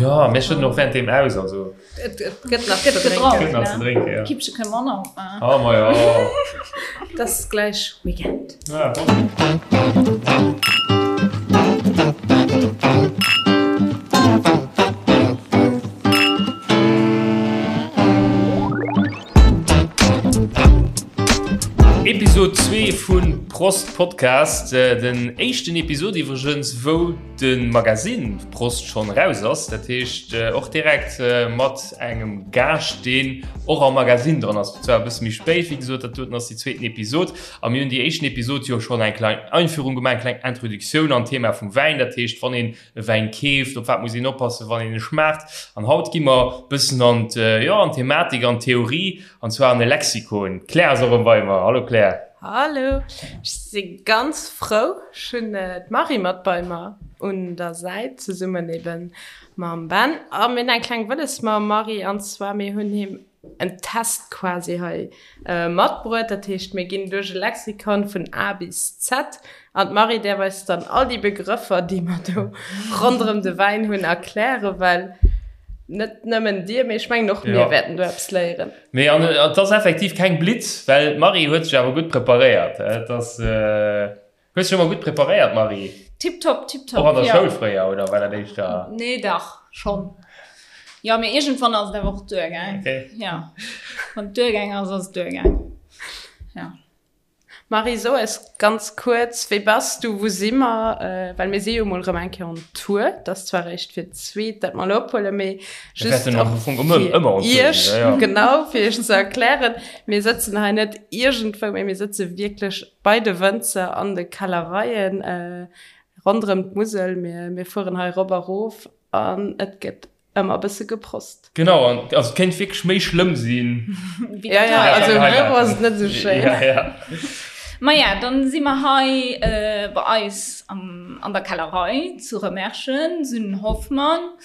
Jo, mir schëdden och während deem aus, also. Et gëtt nach ze drénken. Gëtt nach ze drénken, jo. Kippche kënne mer och nach opmaachen. Oh, ma jo. Et ass gläich Weekend. Ja. Episode 2 vun Prost Podcast, den éischten Episode iwwregens wou de Magasinn Prost schonn eraus ass, dat heescht och direkt mat engem Gaascht deen och am Magasinn dran ass, zwar e bësse méi spéit, wéi gesot, dat doten ass déi zweeten Episode a mir hunn déi éischten Episode jo schonn eng kleng Einführung gemaach, eng kleng Introduktioun an d'Thema vum Wäin, dat heescht wann een e Wäin keeft, op wat muss een oppassen, wann een e schmaacht. An haut gi mer bëssen an jo, an d'Thematik, an d'Theorie, an zwar an e Lexikon. D'Claire ass och erëm bei mer. Hallo Claire. Hallo, ech si ganz frou. Ech hunn d'Marie mat bei mer un der Säit, zesummen eben mam Ben. A mir hunn eng kleng Wëlles mam Marie, an zwar mir hunn him en Test quasi hei matbruet. Dat heescht, mir ginn duerch e Lexikon vun A bis Z an d'Marie däerf eis dann all déi Begrëffer, déi mer do ronderëm de Wäin hunn, erklären, well net nëmmen dir, mee ech mengen och mir wäerten do eppes léieren. Mee an et ass effektiv keng Blitz, well d'Marie huet sech awer gutt preparéiert. Et ass. Hues dech ëmmer gutt preparéiert, Marie? Tiptop, tiptop, Och an der Schoul fréier, oder war dat éischter? Nee, dach, schonn. Jo, mee iergendwann ass et awer och duergaang. Okay. Jo, wann et duergaang ass, ass et duergaang. Jo. Marie, so eis ganz kuerz, Wie bass du, wou si mer? Well mir si jo mol erëm eng Kéier on Tour. Et ass zwar eréischt fir d'zweet, dat mer elo ophuelen, mee just och fir iech, genau, fir iech ze erklären, Mir sëtzen hei net iergendwou, mee mir sëtze wierklech Bei de Wënzer an de Kellereien ronderëm d'Musel. Mir fueren hei rop a rof an et gëtt ëmmer e bësse geprost. Genau, an also et kéint wierklech méi schlëmm sinn. Ja, ja, also am Büro ass et net esou schéin. Ja, ja. Maja, dann si mer hei bei eis an der Kellerei zu Remerschen, Sünnen Hoffmann,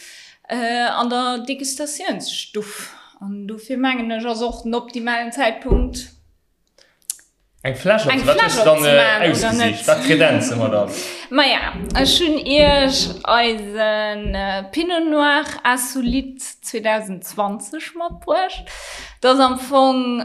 an der Degustatiounsstuff. An dofir mengen ech, ass och den optimalen Zäitpunkt, Eng Fläsch Eng Fläsch opzemaachen, oder net? Wat kredenze mer dann? Maja, ech hunn iech eisen Pinot Noir Insolite 2020 matbruecht. Dat ass am Fong,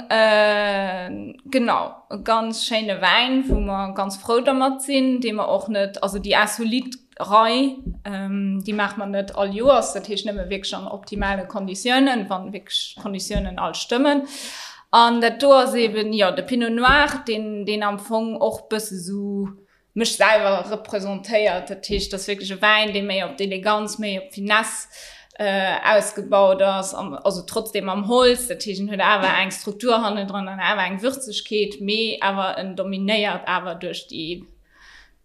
genau, e ganz schéine Wäin, wou mer ganz frou dermat sinn, dee mer och net, also déi Insolite Rei, déi maache mer net all Joers, dat heescht nëmme wierklech an optimale Konditiounen, wann wierklech d'Konditiounen all stëmmen. An dat do ass eben, jo, de Pinot Noir, deen, deen am Fong och bësse sou mech selwer representéiert. Dat heescht, dat ass wierklech e Wäin, dee méi op d'Eleganz, méi op d'Finesse ausgebaut ass, also trotzdem am Holz. Dat heescht, en huet awer eng Struktur hannendran an awer eng Würzegkeet, mee awer en dominéiert awer duerch déi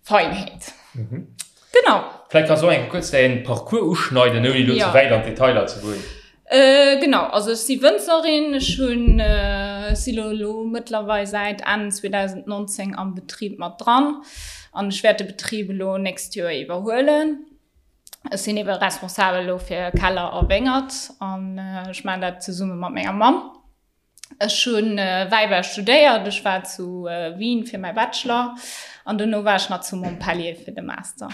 Feinheet. Mhm. Genau. Vläicht kanns du och eng Kéier kuerz däin Parcours uschneiden, ouni elo ze wäit an d'Detailer ze goen. Genau, also ech si Wënzerin, ech hunn, si lo elo mëttlerweil säit Enn 2019 am Betrib mat dran an ech wäert de Betrib elo nächst Joer iwwerhuelen. Ech sinn ebe responsabel elo fir Keller a Wéngert an ech maachen dat zesumme mat menger Mamm. Ech hu Wäibau studéiert, ech war zu Wien fir mäi Bachelor an dono war ech nach zu Montpellier fir de Master.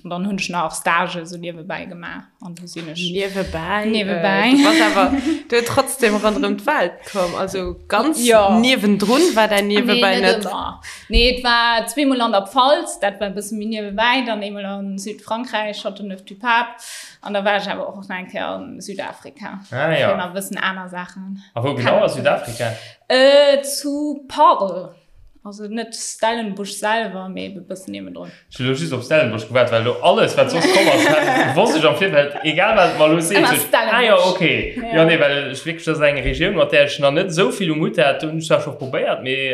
An dann hunn ech nach Stage sou niewebäi gemaach an du sinn ech. Niewebäi? Niewebäi. Du bass awer du trotzdem ronderëm d'Welt komm, also ganz niewendrun war däin Niewebäi net. Nee, net ëmmer. Nee, et war zweemol an der Pfalz, dat war e bësse méi niewebäi, dann eemol a Südfrankräich, Châteauneuf-du-Pape. An da war ech awer och nach eng Kéier an Südafrika. Ah, ja. Fir nach e bëssen aner Saachen. A wou genau a Südafrika? Äh, zu Paarl. Also net Stellenbosch selwer, mee e bëssen niewendrun. Ech hunn elo just op Stellenbosch gewaart, well elo alles, wat soss komm ass, hat, wosst ech am Virfeld, egal wat et mer elo seet, Ëmmer sot ech, ah jo, Stellenbosch. okay. Ja. Jo, nee, well ech wierklech, dat ass eng Regioun, mat där ech nach net esou vill um Hutt hat. Do hunn ech zwar scho probéiert, mee,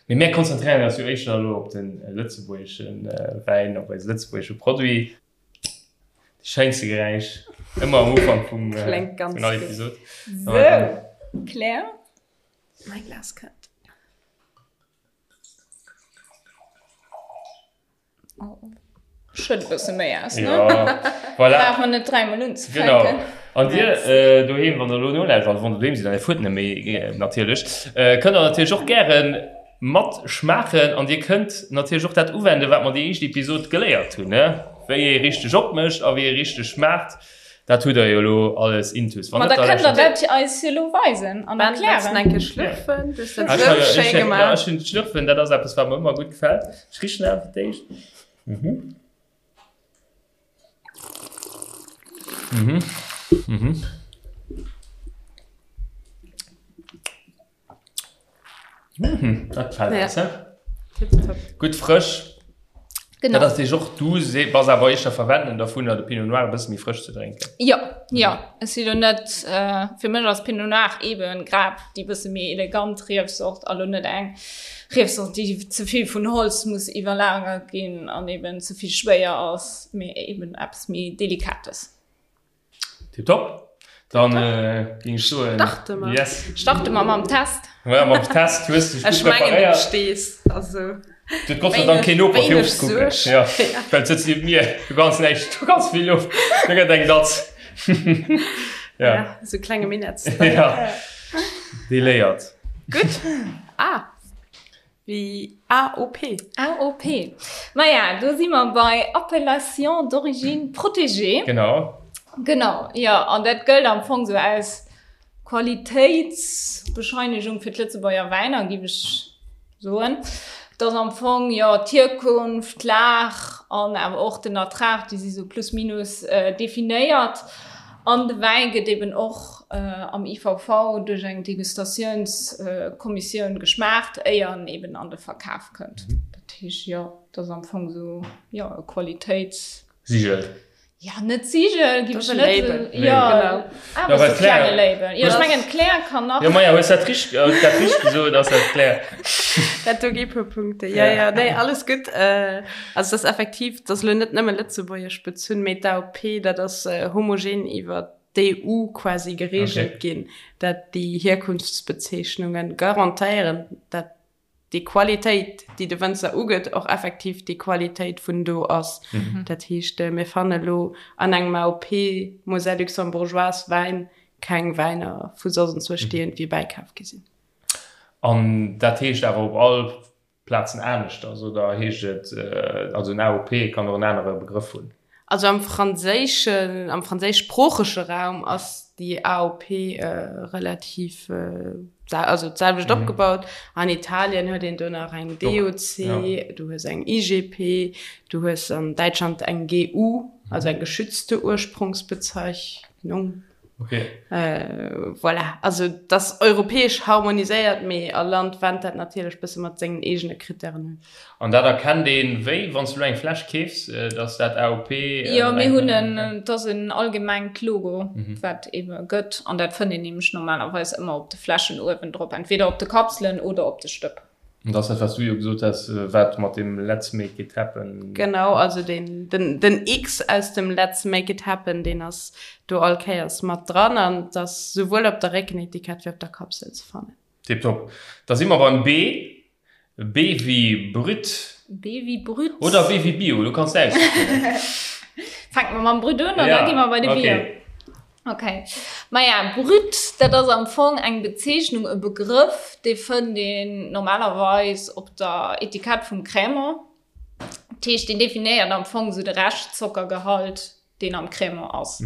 mee mär konzentréieren eis jo éischter elo op de lëtzebuergesche Wäin, op eise lëtzebuergesche Produit. Schéinste Geräisch ëmmer am Ufank vum Kléngt ganz vun all gutt. Episod. Sou, Claire. Mäi Glas kënnt. Oh, schëtt e bësse méi aus, ne? Ja, voilà. Brauch mer net dräimol unzefänken. Genau. An dir äh, doheem, wann der elo nolauschtert, also wann der doheem sidd an dir fuert net méi, äh, natierlech, äh, kënnt der natierlech och gären Mat schmaachen an dir kënnt natierlech och dat uwenden, wat mer déi éischt Episod geléiert hunn, ne? Wéi ee richteg opmécht a wéi ee richteg schmaacht. Dat hutt der jo elo alles intus. Wann Ma da kënnt der dat eis jo elo weisen an erklären. Eng Kéier schlürfen, du hues dat esou schéi gemaach. Jo, ech hunn d'Schlürfen, dat ass eppes, wat mer ëmmer gutt gefält. Ech richen awer fir d'éischt. Mhm. Mhm. Mhm. Mhm, dat gefällt Ja. eis, hä? Tipptopp. Gutt frësch. Genau. Dat ass deeg och, du se- bass awer éischter Verwenden dervun, de Pinot Noir e bësse méi frësch ze drénken. Jo, jo. Ech si lo net, äh, fir mech ass Pinot Noir eben grad déi bësse méi elegant Riefsort a lo net eng Riefsort, déi ze vill vun Holz muss iwwerlagert ginn an eben ze vill schwéier ass, mee eben eppes méi Delikates. Tipptopp. Dann äh, ging ech soen. Starte mer. Yes. Starte mer mam Test. Ja, mam Test hues du Ech mengen du stees. Also. Du huet Gott sei Dank keen Noper fir Wéineg ofzekucken. Suerg. Ja. Well sëtzt nieft mir, du ganz näischt, du ganz vill Loft. Du gëtt eng Datz. Ja, Ja. sou klenge Minetts. Ja. Déi léiert. Gutt. Ah. Wéi AOP. AOP. Maja, do si mer bei Appellation d'origine protégée. Genau. Genau, jo. An dat gëllt am Fong sou als Qualitéitsbescheinegung fir d'Lëtzebuerger Wäiner, géif ech soen. Et ass am Fong, jo, d'Hierkunft, d'Lag an awer och den Ertrag, déi si sou plus minus definéiert. An de Wäi gëtt eben och am IVV duerch eng Degustatiounskommissioun geschmaacht, éier en eben an de Verkaf kënnt. Dat heescht, jo, et ass am Fong esou, jo, e Qualitéits. Sigel. Jo, net Sigel, ginn Dat ass ech e net Label. esou, jo, Genau. awer esou e klenge Label. Jo, ech mengen, d'Claire kann nach. Jo, maja, hues dat richteg, dat richteg gesot, ass dat d'Claire. Dat do gi puer Punkte. Jo, jo, nee, alles gutt. Also, et ass effektiv, et ass elo net nëmme lëtzebuergesch bezunn, mee d'AOP, dat ass homogen iwwer d'EU quasi geregelt ginn, dat déi Hierkunftsbezeechnunge garantéieren, dat déi Qualitéit, déi de Wënzer ugëtt, och effektiv déi Qualitéit vun do ass. Dat heescht, mir fanne lo an engem AOP Moselle Luxembourgeoise Wäin keng Wäiner vu soss enzwousch, déi iergendwéi bäikaf gi sinn. An dat heescht awer op all Plazen aneschters, oder heescht et, also en AOP kann och en anere Begrëff hunn? Also am franséischen, am franséischsproochege Raum ass déi AOP relativ, also d'selwecht opgebaut. An Italien huet een do nach eng DOC, du hues eng IGP, du hues an Däitschland eng GU, also eng geschützte Ursprungsbezeichnung. Okay. Äh, voilà. Also dat ass europäesch harmoniséiert, mee all Land wennt dat natierlech bësse mat sengen eegene Krittären un. An dat erkennt een wéi, wann s du elo eng Fläsch keefs, dass dat AOP. Jo, mir hunn en, et ass en allgemengt Logo, wat ebe gëtt, an dat fënnt een nämlech normalerweis ëmmer op de Fläschen uewendrop, entweder op de Kapselen oder op de Stëpp. An dat ass dat, wat s du jo gesot has, wat mat deem Let's make it happen. Genau, also deen, den, den X aus dem Let's make it happen, deen ass do all Kéiers mat dran an et ass souwuel op der Réckenetikett wéi op der Kapsel ze fannen. Tiptop. Da si mer beim B. B wéi Brut. B wéi Brut. Oder B wéi Bio, du kanns der aussichen. Fänke mer mam Brut un an da gi mer bei de Bio. Ok. Maja, Brut, dat ass am Fong eng Bezeechnung, e Begrëff, dee fënnt een normalerweis op der Etikett vum Crémant. Dat heescht, deen definéiert am Fong esou de Rescht-Zockergehalt, deen am Crémant ass.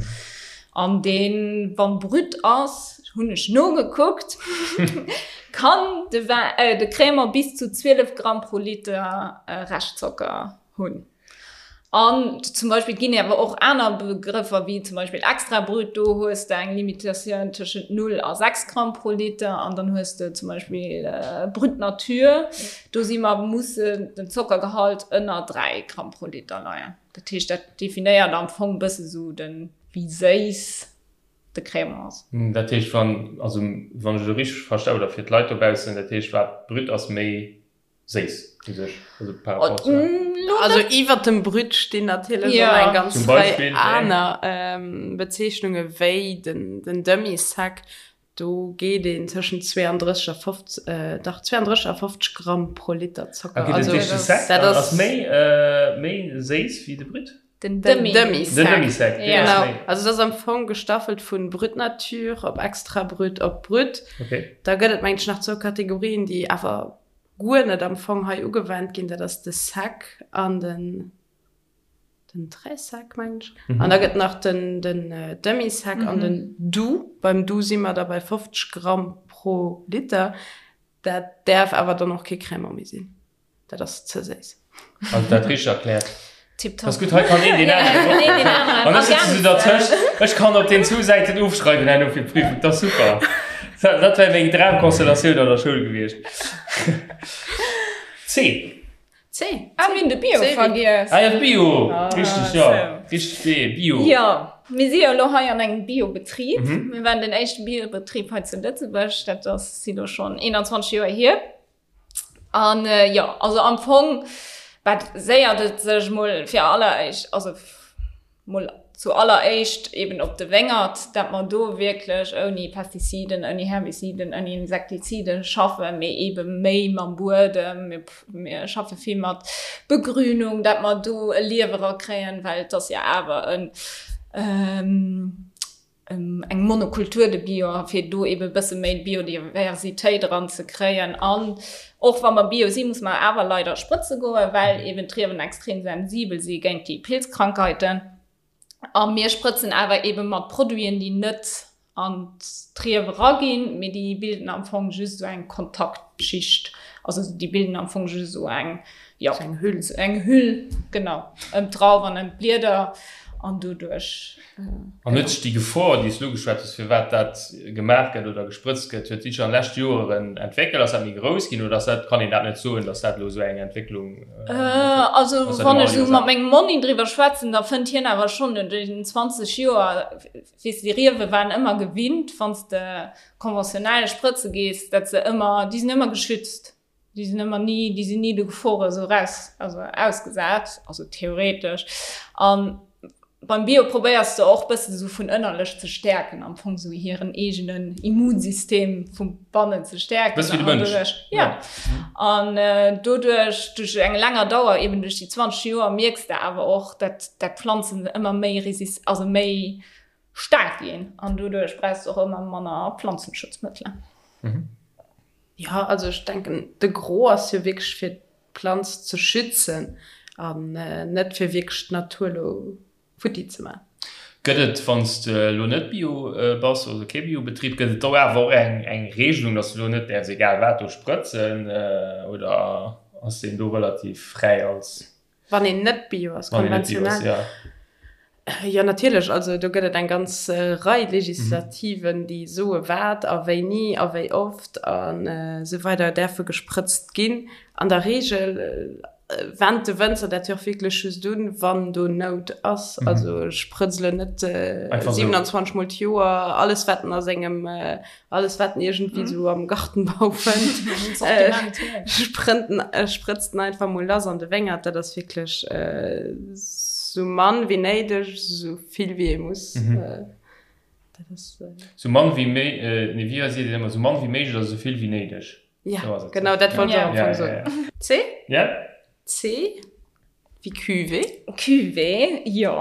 An deen, wann Brut ass, hunn ech nogekuckt, kann de Wäin, de Crémant bis zu 12 Gramm pro Liter Reschtzocker hunn. An zum Beispill, et ginn awer och aner Begrëffer, wéi zum Beispill extra brut, do hues de eng Limitatioun tëschent 0 a 6 Gramm pro Liter. An dann hues de zum Beispill brut nature, do si mer, musse den Zockergehalt ënner 3 Gramm pro Liter leien. Dat heescht, dat definéiert am Fong e bësse sou den, wéi séiss de Crémant ass. Dat heescht, wann, also wann ech elo richteg versta, oder fir d'Leit dobaussen, dat heescht, wat brut ass, méi séiss u sech, also par rapport zu. Also iwwert dem Brut stinn natierlech och eng ganz Rei aner Bezeechnunge wéi den Demi-sec. Do geet een tëschent 32 a 50, dach 32 a 50 Gramm pro Liter Zocker. Okay, dat heescht de Sec ass méi méi séiss wéi de Brut? Den Demi-sec. Den Demi-sec, deen ass méi. Also dat ass am Fong gestaffelt vu Brut Nature op Extra Brut op Brut. Da gëtt et mengen ech nach zwou Kategorien, déi awer guer net am Fong hei ugewennt ginn, dat ass de Sec an den. Den Très sec, mengen ech. An da gëtt nach den, den Demi-sec an den Doux. Beim Doux si mer da bei 50 Gramm pro Liter. Dat däerf awer dann och kee Crémant méi sinn. Dat ass ze séiss. Also dat richteg erkläert. Tipptopp. Ass gutt, hei kann een deen aneren och. An ech sëtzen esou dertëscht. Ech kann op den zwou Säiten ofschreiwen herno fir d'Prüfung. Dat ass super. Dat, dat wär meng Dramkonstellatioun an der Schoul gewiescht. C. C. Ah, mir hunn de Bio vergiess. Ah ja, Bio. Richteg, jo. Richteg, B, Bio. Jo, mir si jo elo hei an engem Biobetrib. Mir waren den éischte Biobetrib hei zu Lëtzebuerg. Dat ass si lo schonn 21 Joer hier. An jo, also am Fong baséiert et sech mol fir alleréischt, also mol zu alleréischt eben op de Wéngert, dat mer do wierklech ouni Pestiziden, ouni Herbiziden, ouni Insektiziden schaffen, mee ebe méi mam Buedem. Mir, mir schaffe vill mat Begrünung, dat mer do e Liewe rakréien, well et ass jo awer en, eng Monokultur de Bio, a fir do ebe e bësse méi Biodiversitéit eran ze kréien. An och wa mer Bio sinn, musse mer awer leider sprëtze goen, well eben d'Riewen extrem sensibel si géint déi Pilzkrankheiten. A mir sprëtzen awer ebe mat Produiten, déi net an d'Riew eraginn, mee déi bilden am Fong just esou eng Kontaktschicht. Also déi bilden am Fong just esou eng, jo, eng Hüll, eng Hüll, genau, ëm d'Drauf an ëm d'Blieder an doduerch. An huet sech déi Gefor, déi s du ugeschwat hues, firwat dat gemaach gëtt oder gesprëtzt gëtt, huet déi sech an de leschte Joeren entwéckelt? Ass dat méi grouss ginn oder ass dat, kann een dat net soen, datt dat elo esou eng Entwécklung ass? Also wann ech esou mat mengem Monni driwwer schwätzen, da fënnt hien awer schonn no den 20 Joer, weess de, déi Riewe waren ëmmer gewinnt, wann s de konventionell sprëtze gees, datt se ëmmer, déi sinn ëmmer geschützt. Déi sinn ëmmer ni, déi sinn ni de Gefore esou raus, also ausgesat, also theoretesch. An beim Bio probéiers de och bëssen esou vun ënnerlech ze stäerken, am Fong esou hiren eegenen Immunsystem vu bannen ze stäerken. Bësse wéi de Mënsch. Ja. An doduerch, duerch eng länger Dauer, eben duerch déi 20 Joer, mierks de awer och, dat dat d'Planzen ëmmer méi resist, also méi staark ginn. An doduerch brauchs de och ëmmer manner Planzenschutzmëttelen. Jo, also ech denken, de Gros ass jo wierklech fir d'Planz ze schützen an net fir wierklech d'Natur elo futti ze maachen. Gëtt et, wann s de elo net Bio bass, also kee Biobetrib, gëtt et do awer och eng eng Regelung, datt s de elo net däerfs egal wat do sprëtzen oder ass deen do relativ fräi als. Wann een net Bio ass, konventionell. Jo, natierlech. Also do gëtt et eng ganz Rei Legislativen, déi soe wat a wéini a wéi oft a sou weider däerfe gesprëtzt ginn. An der Reegel wennt de Wënzer dat jo och wierklech just un, wann do Nout ass. Also ech sprëtz elo net 27 mol d'Joer alles, wat en a sengem Alles wat en iergendwéi sou am Gartenbau fënnt, sprënnt en, sprëtzt en einfach mol lass an de Wéngert. Dat ass wierklech sou mann wéi néideg, sou vill wéi ee muss. Dat ass. Sou mann wéi méi, nee wéi seet een ëmmer, sou mann wéi méiglech a sou vill wéi néideg. Ja, genau dat wollt ech och am Fong soen. C? Ja. C? Wéi Cuvée? Cuvée, jo.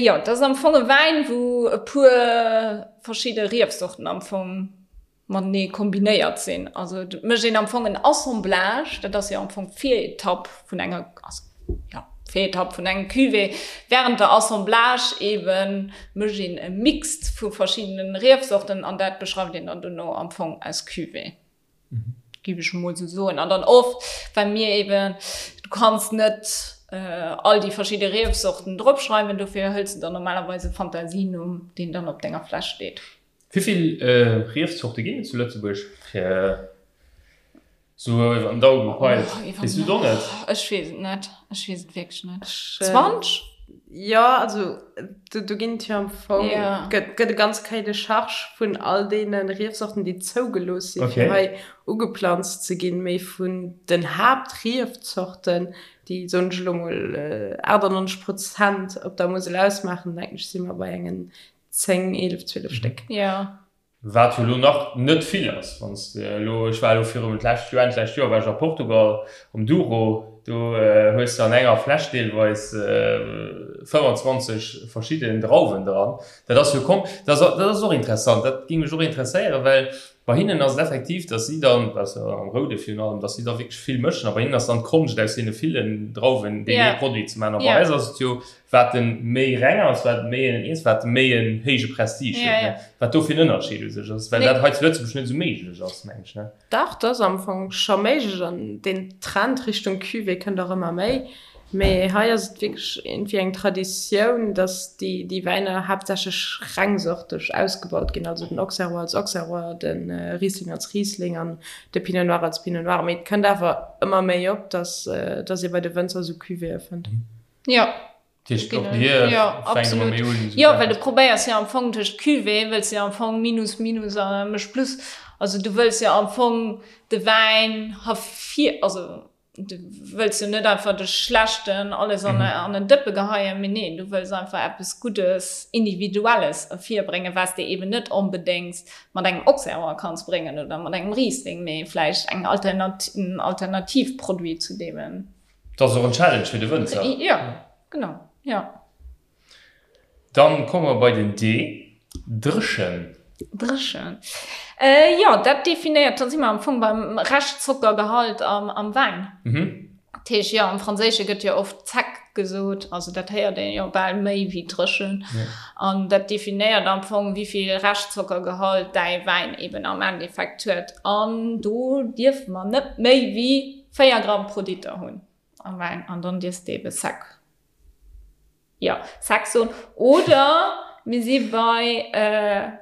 Jo, dat ass am Fong e Wäin, wou e puer verschidde Riefsorten am Fong matenee kombinéiert sinn. Also et mécht een am Fong en Assemblage, dat ass jo am Fong d'Viretapp vun enger, also jo, d'Viretapp vun engem Cuvée. Wärend der Assemblage eebe mécht een e Mixt vu verschiddene Riefsorten an dat beschreift een dann dono am Fong als Cuvée. Géif ech emol esou soen. An dann oft, well mir eben, du kanns net all déi verschidde Riefsorten dropschreiwen, dofir hëls de dann normalerweis e Fantasienumm, deen dann op denger Fläsch steet. Wéi vill Riefzorte ginn et zu Lëtzebuerg? Fir esou iwwer den Daumen gepeilt. Weess du et och net? Ech weess et net. Ech weess et wierklech net. 20? Jo, also do ginn et jo am Fong, gëtt gëtt e ganz Cahier de charges vun all deene Riefsorten, déi zougelooss sinn, fir hei ugeplanzt ze ginn. Mee vun den Haaptriefzorten, déi, soen ech elo mol, 98 Prozent op der Musel ausmaachen, denken ech, si mer bei engen 10, 11, 12 Stéck. Wat jo elo nach net vill ass, wann s de elo, ech war elo virum d'lescht Joer, Enn d'lescht Joer war ech a Portugal um Douro. Do hues de an enger Fläsch deelweis 25 verschidden Drauwen dran. Dat ass jo kom, dat ass, dat ass och interessant, dat géing mech och interesséieren, well bei hinnen ass et effektiv, datt si dann, dat ass jo am Roude virun allem, datt si da wierklech vill mëschen a bei hinnen ass dann d'Konscht aus deene villen Drauwen deen ee Produit ze maachen. A bei eis ass et jo, wat en méi reng ass, wat méi en eens, wat méi en héije Prestige huet, ne? Wat do fir en Ënnerscheed u sech ass, well dat hei zu Lëtzebuerg net esou méiglech ass, meng ech, ne? Dach, dat ass am Fong scho méiglech an deen Trend Richtung Cuvée kënnt och ëmmer méi. Mee hei ass et wierklech iergendwéi eng Traditioun, datt déi déi Wäiner haaptsächlech rengsorteg ausgebaut ginn, also den Auxerrois als Auxerrois, de Riesling als Riesling an de Pinot Noir als Pinot Noir. Mee et kënnt awer ëmmer méi op, datt datt ee bei de Wënzer esou Cuvéeë fënnt. Jo. Dat heescht, och dir Jo, fänkt ëmmer absolut. méi un, esou Jo, well du Wäin. probéiers jo am Fong duerch d'Cuvée wëlls de jo am Fong Minus, Minus a mécht Plus. Also du wëlls jo am Fong de Wäin hervir, also du wëlls jo net einfach de schlechten alles an an en Dëppe geheien, mee neen, du wëlls einfach eppes Guddes, Individuelles ervirbréngen, wat s de eben net onbedéngt mat engem Auxerrois kanns bréngen oder mat engem Riesling, mee vläicht eng Alternat, en Alternativproduit zu deemem. Dat ass och en Challenge fir de Wënzer. Jo, genau, jo. Dann komme mer bei den D, Dréchen. Dréchen. Jo, dat definéiert, da si mer am Fong beim Rescht-Zockergehalt am Wäin. Dat heescht, jo, am Franséische gëtt jo oft sec gesot, also dat héiert een jo bal méi wéi dréchen. An dat definéiert am Fong, wéi vill Rescht-Zockergehalt däi Wäin eben am Endeffekt huet. An do dierfe mer net méi wéi 4 Gramm pro Liter hunn am Wäin an dann dierfs de ebe sec, jo, sec soen. Oder mir si bei,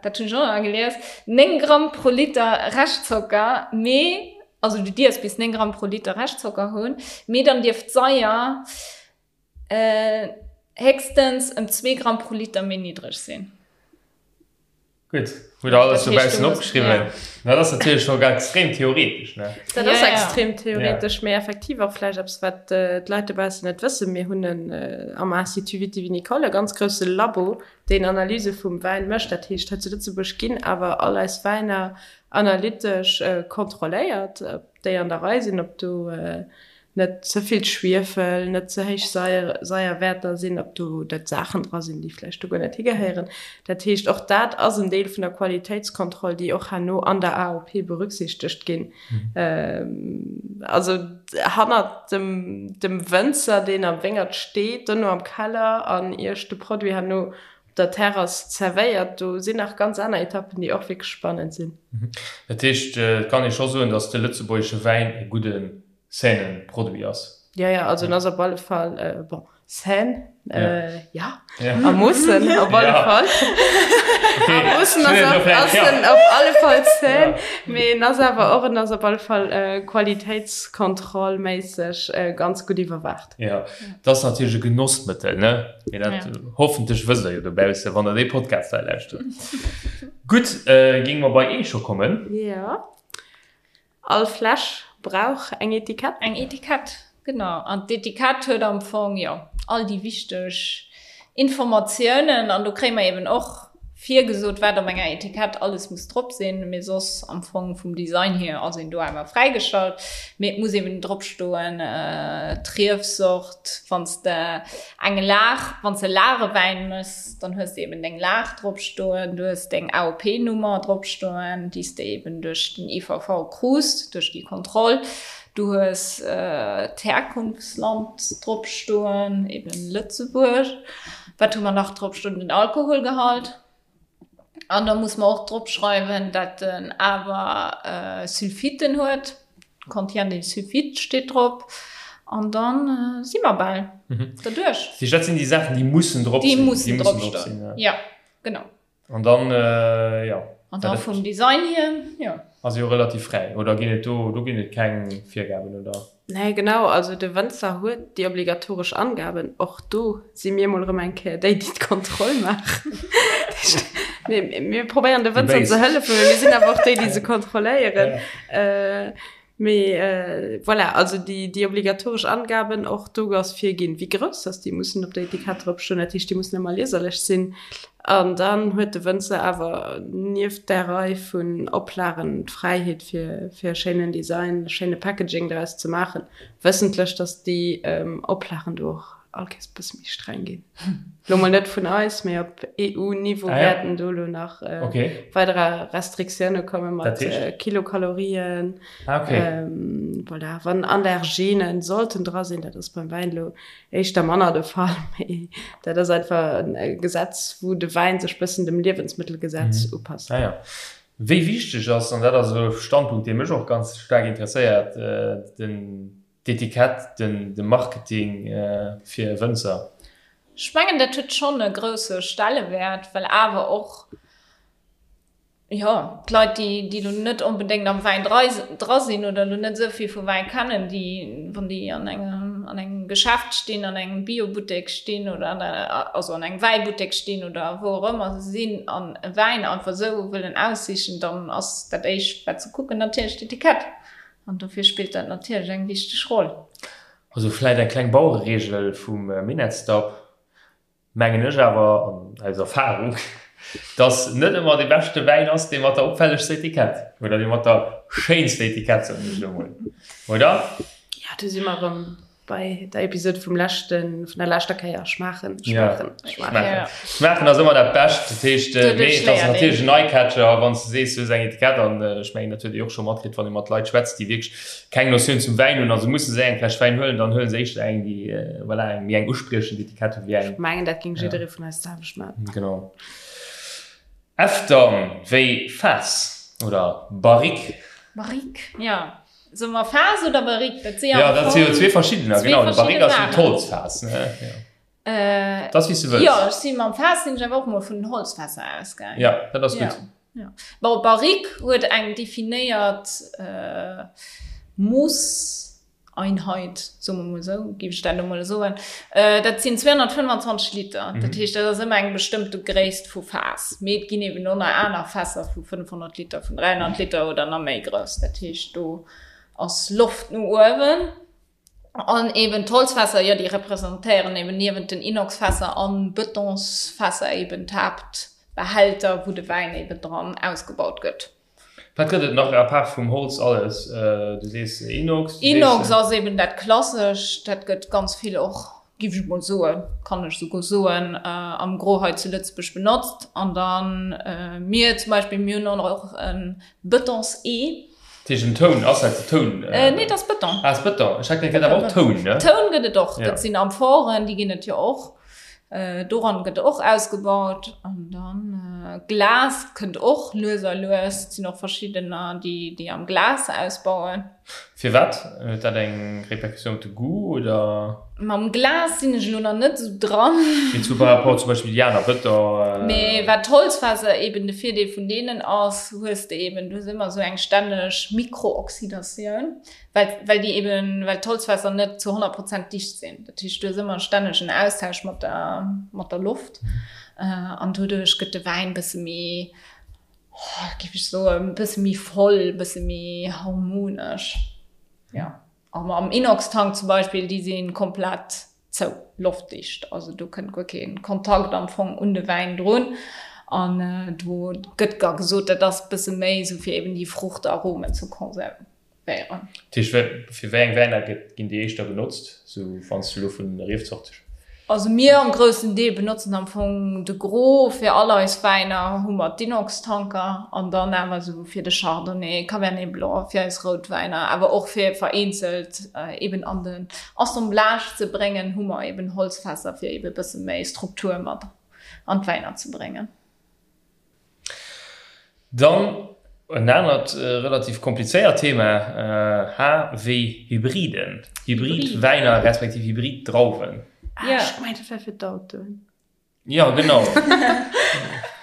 dat hunn ech och nach gelies, 9 Gramm pro Liter Reschtzocker, mee, also du dierfs bis 9 Gramm pro Liter Reschtzocker hunn, mee dann dierf d'Saier héchstens ëm 2 Gramm pro Liter méi niddreg sinn. Gutt, hutt der alles dobaussen opgeschriwwen. Dat ass natierlech scho extrem theoretesch, ne? Dat ass extrem theoretesch, mee effektiv och vläicht eppes, wat d'Leit dobaussen net wëssen. Mir hunn en am Institut Viti-Vinicole e ganz grousse Labo, deen Analyse vum Wäin mécht. Dat heescht, hei zu Lëtzebuerg ginn awer all eis Wäiner analytesch kontrolléiert, ob déi an der Rei sinn, ob do net ze vill Schwiefel, net ze héich Saierwäerter sinn, ob do net Saachen dra sinn, déi vläicht do guer net higehéieren. Dat heescht, och dat ass en Deel vun der Qualitéitskontroll, déi och herno an der AOP berücksichtegt ginn. Also hannert dem dem Wënzer, deen am Wéngert steet, dono am Keller an Iech de Produit herno op der Terrass zerwéiert, do sinn nach ganz aner Etappen, déi och wierklech spannend sinn. Dat heescht, et kann ee scho soen, datt de lëtzebuergesche Wäin e gudde sainen Produit ass. Ja, ja, also en ass op alle Fall, bon, sain, ja, a Moossen op alle Fall. A Moossen ass en op alle Fall sain, mee en ass awer och, en ass op alle Fall qualitéitskontrollméisseg ganz gutt iwwerwaacht. Ja, et ass natierlech e Genossmëttel, ne? Mee dat hoffentlech wësst der jo dobausse, wann der dee Podcast hei lauschtert. Gutt, géinge mer bei Ee scho kommen? Ja. All Fläsch brauch eng Etikett. Eng Etikett, genau. An d'Etikett huet am Fong, jo, all déi wichteg Informatiounen. An do kréie mer eben och virgesot, wat op enger Etikett alles muss drop sinn. Mee soss am Fong vum Design hier ass een do awer fräigestallt. Mee et muss eben drop stoen, d'Riefsort, wann s de eng Lag, wann s de Lagewäin méchs, dann hues de eben deng Lag drop stoen, du hues deng AOP-Nummer drop stoen, déi s de eben duerch den IVV krus, duerch déi Kontroll. Du hues d'Herkunftsland drop stoen, eben Lëtzebuerg. Wat hu mer nach drop stoen? Den Alkoholgehalt. An da muss mer och drop schreiwen, dat en awer Sulfiten huet, contient des sulfites steet drop. An dann si mer bal derduerch. Dat heescht, dat sinn déi Saachen, déi mussen drop sinn? Déi mussen drop stoen, jo, genau. An dann, jo. An da vum Design hier, jo. Ass jo relativ fräi, oder ginn et do, do ginn et keng Virgaben, oder? Nee, genau, also de Wënzer huet déi obligatoresch Angaben. Och do si mir mol erëm eng Kéier déi, déi d'Kontroll maachen. Mir, mir probéieren de Wënzer ze hëllefen, mee mir sinn awer och déi, déi se kontrolléieren. Mee voilà, also déi, déi obligatoresch Angaben, och do ass virginn, wéi grouss dass déi mussen op der Etikett drop stoen. Dat heescht, déi mussen ëmmer lieserlech sinn. An dann huet de Wënzer awer nieft där Rei vun Oplagen d'Fräiheet fir fir e schéinen Design, e schéine Packaging draus ze maachen, wëssentlech, datt déi Oplagen do och all Kéiers e bësse méi streng ginn. Lo mol net vun eis, mee op EU-Niveau wäerten do lo nach weider Restriktioune komme mat Kilokalorien. Voilà, wann Allergenen sollten dra sinn, dat ass beim Wäin lo éischter manner de Fall, mee dat ass einfach e Gesetz, wou de Wäin sech bëssen dem Liewensmëttelgesetz upasst. Ah ja. Wéi wichteg ass, an dat ass e Standpunkt, dee mech och ganz staark interesséiert, den d'Etikett, den de Marketing fir e Wënzer? Ech mengen, dat huet schonn e grousse Stellewäert, well awer och, jo, d'Leit, déi, déi elo net onbedéngt am Wäin dra sinn oder elo net esou vill vu Wäin kennen, déi, wann déi an engem, an engem Geschäft stinn, an engem Biobuttek stinn oder an der, also an engem Wäibuttek stinn oder wou och ëmmer se sinn an e Wäin einfach esou wëllen aussichen, dann ass dat éischt, wat se kucken, natierlech d'Etikett. An dofir spillt dat natierlech eng wichteg Roll. Also vläit eng kleng Bauereregel vum Minettsdapp, mengen ech awer, an aus Erfahrung, dass net ëmmer dee beschte Wäin ass, dee mat der opfällegster Etikett oder dee mat der schéinster Etikett, soen ech elo mol, oder? Jo, do si mer erëm Bei der Episode vum leschten, vun der leschter Kéier, schmaachen, schmaachen, schmaachen. Ja. Schmaachen ass ëmmer dat Bescht. Dat heescht, äh, mee et ass natierlech en Eyecatcher, wann s de sees, du hues eng Etikett an äh, ech mengen, dat huet Dir och scho matkritt, wann ee mat Leit schwätzt, déi wierklech keng Notioun zum Wäin hunn a se musse sech eng Fläsch Wäin huelen, dann huele se éischter eng, déi äh, voilà, eng méi eng uspriechend Etikett huet wéi eng. Ech mengen, dat géing jidderee vun eis d'selwecht maachen. Genau. Efter wéi Faass oder Barrique. Barrique, jo. Soe mer Faass oder Barrique? Dat si jo am Fong zwee verschiddener. Genau, de Barrique ass jo d'Holzfaass, ne? Jo. Dat ass wéi s du wëlls. Jo, ech si mam Faass sinn ech awer och mol vun den Holzfässer ausgaangen. Jo, dat ass gutt. Jo. Bon, Barrique huet eng definéiert Mooss. Einheit, soe mer mol esou, géif ech dat elo mol soen, dat sinn 225 Liter. Dat heescht, dat ass ëmmer eng bestëmmte Gréisst vu Faass. Mee et ginn eben och nach aner Fässer vu 500 Liter, vun 300 Liter oder nach méi grouss. Dat heescht, do ass Loft no uewen. An eben d'Holzfässer, jo, déi representéieren eben niewent den Inoxfässer an Betonsfässer eben d'Haaptbehälter, wou de Wäin eben dran ausgebaut gëtt. Wat gëtt et nach à part vum Holz alles? Du sees Inox, du sees. Inox ass eben dat Klassescht, dat gëtt ganz vill och, géif ech mol soen, kann ech souguer soen, am Gros hei zu Lëtzebuerg benotzt. An dann mir zum Beispill, mir hunn och e Betons-Ee. Dat heescht en Toun, ass dat Toun? Nee, dat ass Beton. Ah, ass Beton. Ech hat gemengt, et gëtt awer och Toun, ne? Toun gëtt et och, dat sinn Amphoren, déi ginn et jo och. Doran gëtt och ausgebaut an dann Glas kënnt och lues a lues. Et sinn och verschiddener, déi déi am Glas ausbauen. Firwat? Huet dat eng Répercussioun op de Goût oder? Mam Glas sinn ech elo nach net esou dran. Mee zu par rapport zum Beispill déi aner Bëtter? Mee wat d'Holzfässer eben de Virdeel vun deenen ass, hues de eben, du hues ëmmer esou eng stänneg Mikrooxydatioun. Well, well déi eben, well d'Holzfässer net zu 100 Prozent dicht sinn. Dat heescht, du hues ëmmer stänneg en Austausch mat der, mat der Loft. An doduerch gëtt de Wäin e bësse méi, oh, géif ech soen, e bësse méi voll, e bësse méi harmonesch. Jo. A am Inox-Tank zum Beispill, déi si komplett zou, loftdicht, also do kënnt guer kee Kontakt am Fong un de Wäin drun an do gëtt da gesot, dat ass bësse méi esou fir eben déi Fruchtaromen ze konservéieren. Dat heescht, fir wéi eng Wäiner ginn déi éischter benotzt, sou wann s du elo vun Riefzorte Also mir am groussen Deel benotzen am Fong de Gros fir all eis Wäiner hu mer d'Inox-Tanker an dann awer esou fir de Chardonnay, Cabernet Blanc, fir eis Routwäiner, awer och fir vereenzelt eben an den Assemblage ze bréngen, hu mer eben Holzfässer fir eben e bësse méi Struktur mat an d'Wäiner ze bréngen. Dann en anert relativ komplizéiert Thema, H wéi Hybriden, Hybridwäiner respektiv Hybriddrauwen. Ah, ech gemengt dat wär fir d'Autoen. Jo, genau.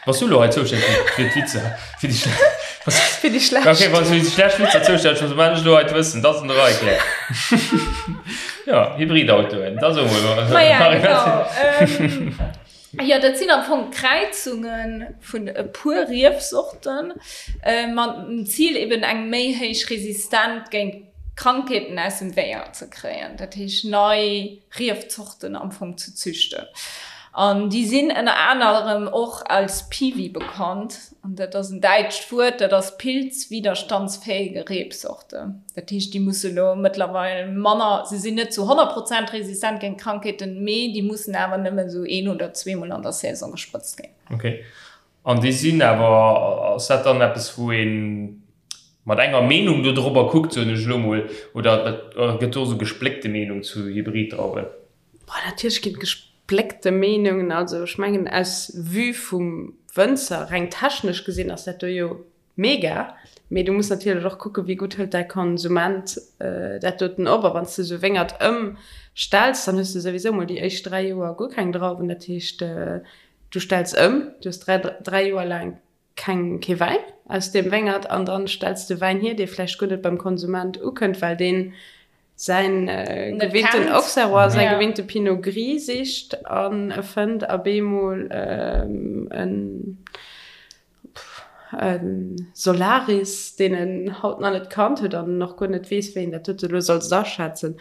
Bass du elo hei zoustänneg fir d'Witzer? Fir déi schlecht. Fir déi schlecht. Okay, wann s du fir déi schlecht Witzer zoustänneg bass, dann maachen ech elo hei d'Wëssen. Dat ass an der Rei, Claire. Jo, Hybridautoen, da so mol. Maja, genau. Jo, dat sinn am Fong Kräizunge vun e puer Riefsorten, mat dem Zil eben eng méi héich Resistent géint Krankheeten aus dem Wéngert ze kréien. Dat heescht nei Riefzorten am Fong ze züchten. An déi sinn ënner anerem och als Piwi bekannt. An dat ass en däitscht Wuert, dat ass pilzwiderstandsfähige Rebsorte. Dat heescht, déi musse lo mëttlerweil manner, se sinn net zu 100 Prozent resistent géint Krankheeten, mee déi mussen awer nëmmen esou een oder zweemol an der Saison gesprëtzt ginn. Ok. An déi sinn awer, ass dat dann eppes, wou ee mat enger Meenung do drobber kuckt, soen ech elo mol, oder gëtt do esou gespléckte Meenung zu Hybriddrauwen? Boah, natierlech ginn et gespléckte Meenungen. Also ech mengen aus Vue vum Wënzer, reng technesch gesinn, ass dat do jo mega. Mee du muss natierlech och kucken, wéi gutt hëlt däi Konsument dat doten op. A wann s de esou Wéngert ëmstells, dann hues de souwisou mol déi éischt 3 Joer guer keng Drauwen. Dat heescht, du stells ëm, du hues 3 Joer laang keng, kee Wäin aus deem Wéngert an dann stells de Wäin hier, dee vläicht guer net beim Konsument ukënnt, well deen säin gewinnten Auxerrois, säi gewinnte Pinot Gris sicht an e fënnt a beemol en Solaris, deen en haut nach net kannt huet an och guer net weess, wéi en dat dote elo soll aschätzen.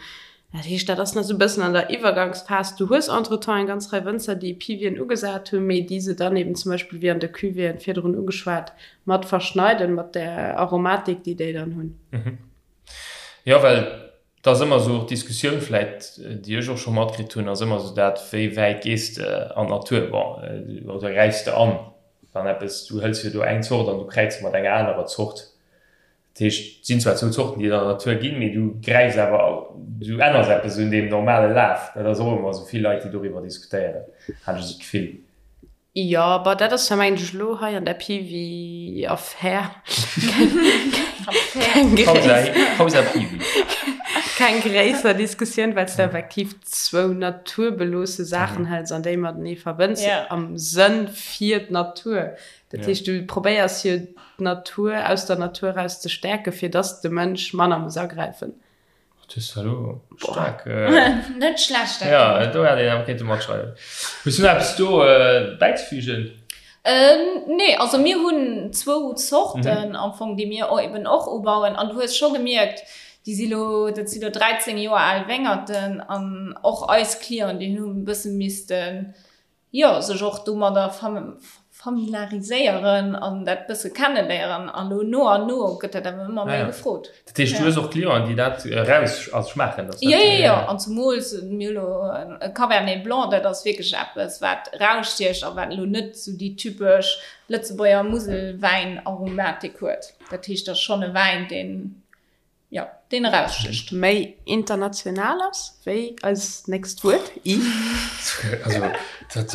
Dat heescht, dat ass nach esou e bëssen an der Iwwergangsphas. Du hues entretemps eng ganz Rei Wënzer, déi Piwien ugesat hunn, mee déi se dann eben zum Beispill, wéi an de Cuvéeën virdrun ugeschwat, mat verschneiden, mat där Aromatik, déi déi dann hunn. Jo, well et ass ëmmer esou och d'Diskussioun vläit, déi ech och scho matkritt hunn, ass ëmmer esou dat, wéi wäit gees de an d'Natur, bon, oder gräifs de an, wann eppes, du hëls jo do eng Zort an du kräiz se mat enger anerer Zort. Dat heescht, et sinn zwar zwou Zorten, déi et an der Natur ginn, mee du gräifs awer, du änners eppes un deem normale Laf. Dat ass och ëmmer esou vill Leit, déi doriwwer diskutéieren, hat ech esou d'Gefill. Jo, bon, dat ass jo, mengen ech, elo hei an der Piwi-Affär keng gréisser Diskussioun, well s de effektiv zwou naturbeloosse Saachen hëls an déi matenee verbënns am Sënn fir d'Natur. Dat heescht, du probéiers jo d'Natur aus der Natur eraus ze stäerken, fir dass de Mënsch manner muss agräifen. Dat hues de elo staark. Net schlecht, dat. Jo, do hätt een awer kéinte matschreiwen. Hues du nach eppes do bäizefügen? Nee, also mir hunn zwou Zorten am Fong, déi mir eben och ubauen. An du hues scho gemierkt, déi si lo, dat si lo 13 Joer al Wéngerten an och eis Clienten, déi hunn e bësse missten jo, sech och domadder familiariséieren an dat bësse kenneléieren. An elo no an no gëtt dat awer ëmmer méi gefrot. Dat heescht, du hues och Clienten, déi dat eraus also schmaachen? Dass dat, jo, jo, jo. An zemools mir hu lo e Cabernet Blanc, dat ass wierklech eppes, wat erausstiecht a wat elo net esou déi typesch Lëtzebuerger Muselwäin-Aromatik huet. Dat heescht, dat ass schonn e Wäin, deen Jo, deen erausstécht. Méi international ass wéi eis nächst Wuert, i. Also, dat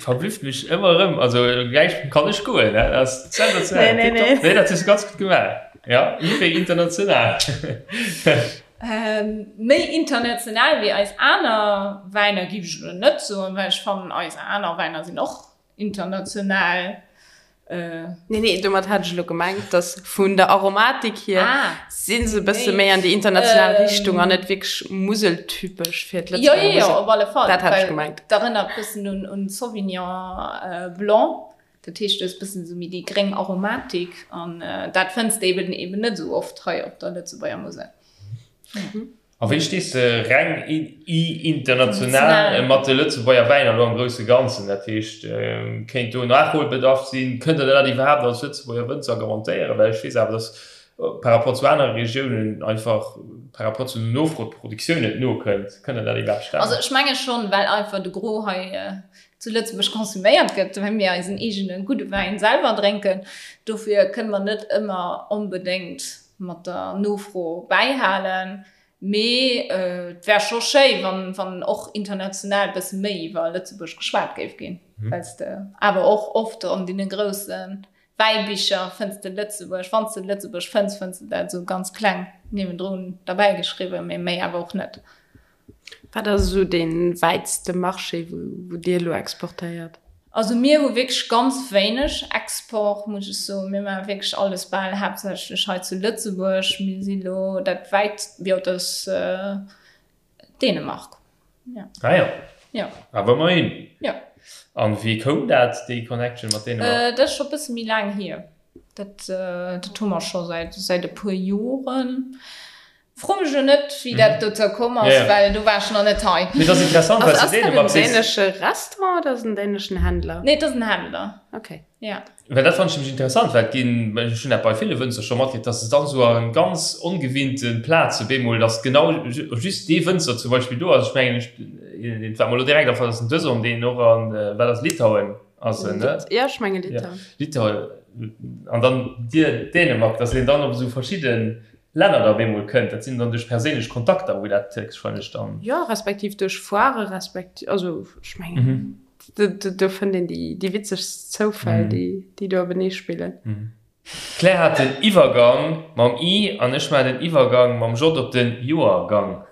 verblüfft mech ëmmer erëm. Also, gläich kann ech goen, dat ass sensationell. Nee, nee, nee. Nee, dat hues du ganz gutt gemaach. Ja, i wéi international. Méi international wéi eis aner Wäiner géif ech elo net soen, well ech fannen, eis aner Wäiner sinn och International. Nee, nee, domat hat ech elo gemengt, dass vun der Aromatik hier ah, si se e bësse méi an déi international ähm, Richtung an net wierklech museltypesch fir d'Lëtzebuerger Jo, jo, jo, op alle Fall. Dat hat ech gemengt. Dat erënnert bëssen un, un Sauvignon äh, Blanc. Dat heescht, du hues bëssen esou méi déi gréng Aromatik an äh, dat fënns de eben eben net esou oft hei op der Lëtzebuerger Musel. Mhm. A wéi stees de reng international mat de Lëtzebuerger Wäiner elo am grousse Ganzen? Dat heescht, kéint do Nachholbedarf sinn? Kënnt Der dat iwwerhaapt als Lëtzebuerger Wënzer garantéieren? Well ech weess awer, datt par rapport zu anere Regiounen einfach par rapport zu der Nofro d'Produktioun net nokënnt. Kënnt Der dat iwwerhaapt stemmen? Also ech menge schonn, well einfach de Gros hei zu Lëtzebuerg konsuméiert gëtt, well mir eisen eegene gudde Wäin selwer drénken. Dofir kënne mer net ëmmer onbedéngt mat der Nofro bäihalen. Mee et wär scho schéi, wann, wann och international e bësse méi iwwer Lëtzebuerg geschwat géif ginn, well s de awer och oft an deene grousse Wäibicher fënns de Lëtzebuerg, wann s de Lëtzebuerg fënns, fënns de dat esou ganz kleng niewendrun derbäigeschriwwen, mee méi awer och net. Wat ass esou dee wäitste Marché, wou Dir elo exportéiert? Also mir hu wierklech ganz wéineg Export, muss ech soen. Mir maache wierklech alles bal haaptsächlech hei zu Lëtzebuerg. Mir si lo dat wäit, jo dat ass Dänemark. Jo. Ah jo. Jo. Awer ëmmerhin. Jo. An wéi koum dat, déi Connection mat Dänemark? Dat ass scho e bësse méi laang hier. Dat, dat hu mer scho säit, säit e puer Joren. Fro mech elo net, wéi dat dozou komm ass, well do war ech nach net hei. Mee et ass interessant, well s de Dänemark sees. Ass dat en dänesche Restaurant oder ass et en däneschen Händler? Nee, et ass en Händler. Okay. Ja. Well dat fannen ech nämlech interessant, well et ginn, ech hunn dat bei ville Wënzer scho matkritt, dass se dann esou a ganz ongewinnte Plaze bemol, dass genau just dee Wënzer zum Beispill do ass. Ech mengen, ech, wat mer elo direkt afält, ass den Dëson, deen och an, wat ass Litauen ass en, ne? Ja, ech menge Litauen. Litauen. An dann Dir Dänemark, dass een dann op esou verschidde Länner da bemol kënnt. Dat sinn dann duerch perséinlech Kontakter, wou dat héchstwahrscheinlech dann. Jo, respektiv duerch Foire, respektiv, also ech mengen, do fënnt een déi witzegst Zoufäll, déi do openee spillen. D'Claire hat den Iwwergang mam I an ech maachen den Iwwergang mam J op den Joergang.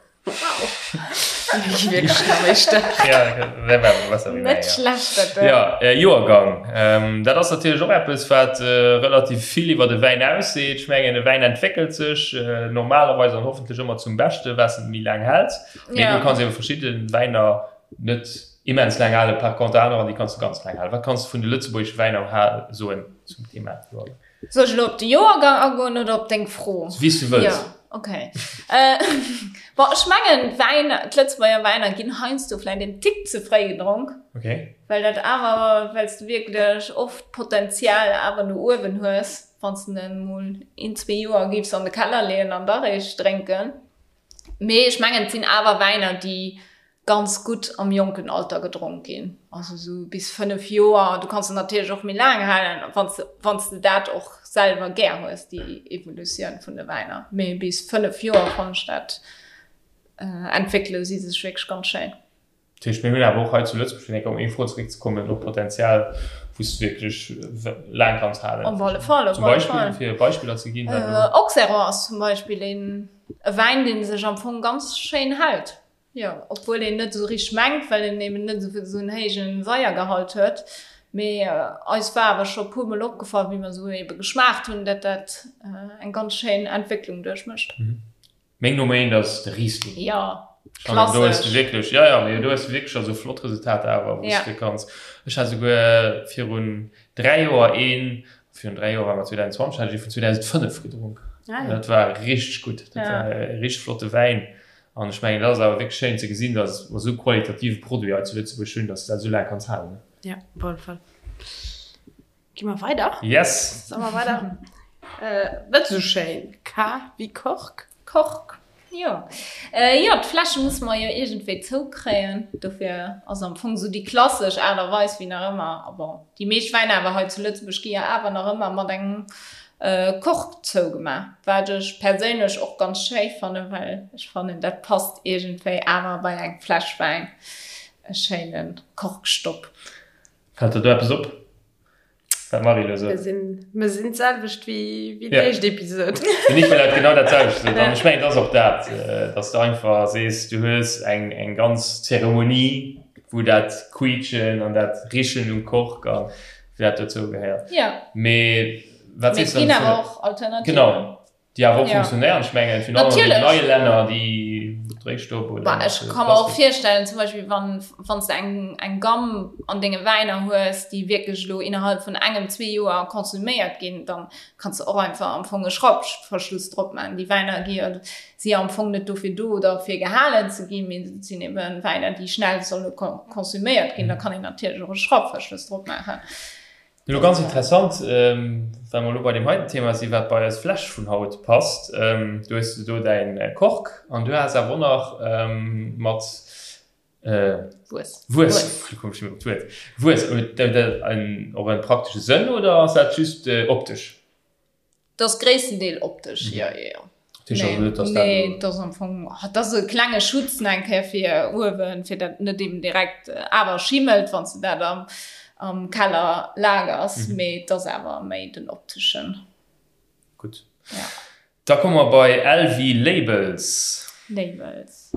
Net schlecht dat do. Jo, Joergang, dat ass natierlech och eppes, wat relativ vill iwwer de Wäin ausseet. Ech mengen, e Wäin entwéckelt sech normalerweis an hoffentlech ëmmer zum Beschte, wat en méi laang hält. Mee du kanns ebe verschidde Wäiner net immens laang halen, par contre anerer, déi kanns du ganz laang halen. Wat kanns du vun de lëtzebuergesche Wäiner soen zum Thema Joergang? Soll ech elo op de Joergang agoen oder op deng Fro? Wéi s du wëlls. Jo, okay. Bon, ech mengen, d'Wäiner, d'Lëtzebuerger Wäiner ginn heiansdo vläicht en Tick ze fréi gedronk. Okay. Well dat awer, well s du wierklech oft Potenzial awer no uewen hues, wann s de en emol een, zwee Joer géifs an de Keller leeën an da réischt drénken. Mee ech mengen, et sinn awer Wäiner, déi ganz gutt am jonken Alter gedronk ginn, also esou bis 5 Joer. Du kanns se natierlech och méi laang halen, wann s wann s de dat och selwer gär hues, déi Evolutioun vun de Wäiner. Mee bis 5 Joer fannen ech dat entwéckele si sech wierklech ganz schéin. Dat heescht, mir hunn awer och hei zu Lëtzebuerg, fir eng Kéier op meng Fro zeréckzekommen, och Potenzial, wou s de wierklech laang kanns halen. Op alle Fall, op Zum alle Beispill, Fall. fir Beispiller ze ginn, wat elo. Auxerrois ass zum Beispill een e Wäin, dee sech am Fong ganz schéin hält. Jo, obwuel een net esou richteg mengt, well en eben net esou en héijen Saiergehalt huet. Mee eis war awer scho puer mol opgefall, wéi mer esou ebe geschmaacht hunn, dat dat eng ganz schéin Entwécklung duerchmécht. Meng Nummer eent ass de Riesling. Jo, klassesch. Do hues de wierklech, jo, jo, mee do hues de wierklech also flott Resultater awer, wou s de kanns. Ech hat esouguer virun 3 Joer een, virun 3 Joer war mer 2020, hat ech ee vun 2005 gedronk. Dat war richteg gutt, dat war e richteg flotte Wäin. An ech mengen, dat ass awer wierklech schéin ze gesinn, dass mer esou qualitative Produit hei zu Lëtzebuerg hunn, dass de dat esou laang kanns halen. Jo, op alle Fall. Gi mer weider? Yes! Solle mer weider? Net esou schéin. K wéi Kork. Kork, jo. Jo, d'Fläsche musse mer jo iergendwéi zoukréien. Dofir ass am Fong esou déi klassesch Aart a Weis wéi nach ëmmer, a bon, déi meescht Wäiner awer hei zu Lëtzebuerg gi jo awer nach ëmmer mat engem Kork zougemaach, wat ech perséinlech och ganz schéi fannen, well ech fannen dat passt iergendwéi awer bei eng Fläsch Wäin, e schéine Korkstopp. Fält der do eppes op, wat d'Marie elo sot? Mir sinn d'selwecht wéi déi éischt Episode. Den Nicolas huet genau dat selwecht gesot an ech mengen, et ass och dat, dass de einfach sees, du hues eng ganz Zeremonie, wou dat Quiitschen an dat Richen um Kork a wéi dat dozou gehéiert. Ja. Mee wat Mee sees et du ginn dann awer vun och Alternativen. Genau, déi awer och Ja. funktionéieren. Ech mengen, virun allem an den Natierlech. neie Länner, déi Dréistopp oder Bah, mat ech ka mer och Plastik. virstellen, zum Beispill wann wann s de eng eng Gamme an denge Wäiner hues, déi wierklech elo innerhalb vun engem, zwee Joer konsuméiert ginn, dann kanns de och einfach am Fong e Schrappverschluss drop maachen. Déi Wäiner gi jo, si jo am Fong net dofir do, derfir gehalen ze ginn, mee et sinn eben Wäiner, déi schnell solle konsuméiert ginn. Da kann een natierlech och e Schrappverschluss drop maachen. Elo ganz interessant, well mer elo bei deem heiten Thema sinn, wat bei eis Fläsch vun haut passt. Du hues do däin Kork an du has awer och nach mat Wues. Wues, wéi komm ech nëmmen op d'Wuert? Wues, huet dat och en praktesche Sënn oder ass dat just optesch? Dat ass gréisstendeel optesch, jo, jo, jo. Dat heescht also net, dass dat Nee, elo. dat ass am Fong, dat ass e klenge Schutz nach eng Kéier fir uewen, fir dat net eben direkt awer schimmelt, wann s de dat am, am Keller lagers, mee et ass awer méi den opteschen. Gutt. Ja. Da komme mer bei LV Labels. Labels.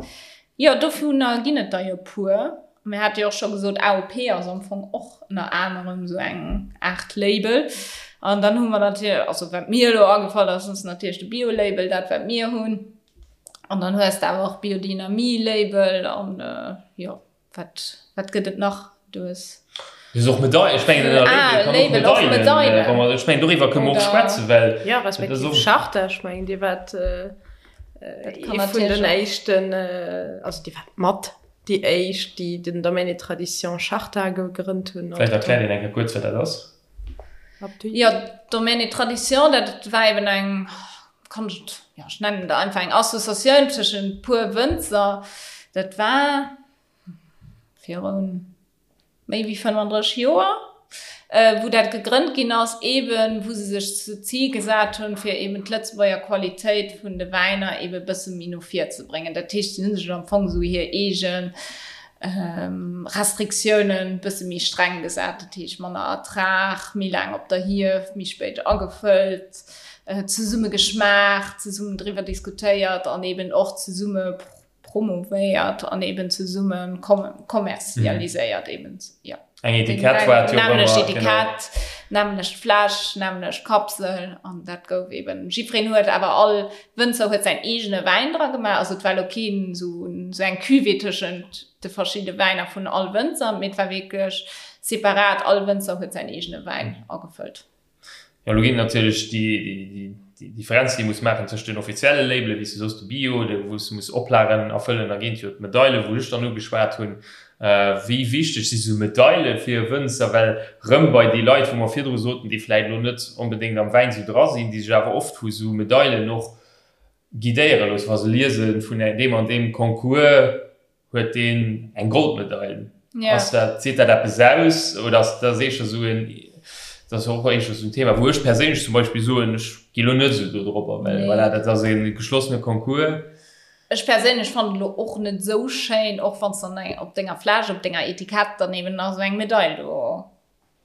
Jo, dovunner ginn et der jo puer. Mir hate jo och scho gesot, AOP ass am Fong och ënner anerem esou eng Aart Label. An dann hu mer natierlech, also wat mir elo agefall ass, ass natierlech de Bio-Label, dat wat mir hunn. An dann hues de awer och Biodynamie-Label an jo. Wat, wat gëtt et nach? Du hues. Du hues och Medail, ech mengen ënner Ah, Label kann och Label, och Medailen, Medailen. wa mer, ech mengen doriwwer kënne mer och Oder- schwätzen, well Ja, dat ass respektiv och. Charta, ech mengen Dir waart. Ee vun den éischten, also déi war mat déi éischt, déi den Domaine et Traditions Charta gegrënnt hunn. Vläicht erkläert een eng Kéier kuerz, wat dat ass. Jo, Domaine et Traditions, dat war eben eng, kann ech et, jo, ech nennen et einfach eng Associatioun tëschent puer Wënzer. Dat war virun méi wéi 35 Joer, wou dat gegrënnt ginn ass, eeben wou se sech zu Zil gesat hunn, fir eeben d'Lëtzebuerger Qualitéit vun de Wäiner eebe bësse méi no vir ze bréngen. Dat heescht, si hu sech am Fong esou hir eege Restriktiounen bësse méi streng gesat, dat heescht manner Ertrag, méi laang op der Hief, méi spéit agefëllt, zesumme geschmaacht, zesummen driwwer diskutéiert an eeben och zesumme promovéiert an eben zesumme kommerzialiséiert eben jo. Eng Etikett war et jo och ëmmer, genau. Etikett, nämmlecht Fläsch, nämmlecht Kapsel an dat gouf eben, jiddwereen huet awer, all Wënzer huet säin eegene Wäin dra gemaach, also et war elo keen esou esou eng Cuvée tëschent de verschidde Wäiner vun all Wënzer, mee et war wierklech separat, all Wënzer huet säin eegene Wäin agefëllt. Jo, elo ginn et natierlech déi Differenz, déi ee muss maachen tëscht den offizielle Labelen, wéi s du soos, de Bio, wou s du muss Oplagen erfëllen, da ginn et jo d'Medaile wou ech dann ugeschwat hunn. Wéi wichteg si sou Medaile fir e Wënzer? Well rëm bei déi Leit, wou mer virdru soten, déi vläicht elo net onbedéngt am Wäin sou dra sinn, déi sech awer oft vu sou Medailen och guidéiere loossen, wa se liese vun deem an deem Concours, Huet deen eng Goldmedail? Ja. Ass dat, seet dat eppes aus oder ass dat éischter esou en, dat ass och éischter esou en Thema, wou ech perséinlech zum Beispill soen, ech gi lo net esou do dropper, well Nee. voilà, dat ass e geschlossene Concours. Ech perséinlech fannen et lo och net esou schéin, och wann s dann eng op denger Fläsch, op denger Etikett dann eben nach esou eng Medail do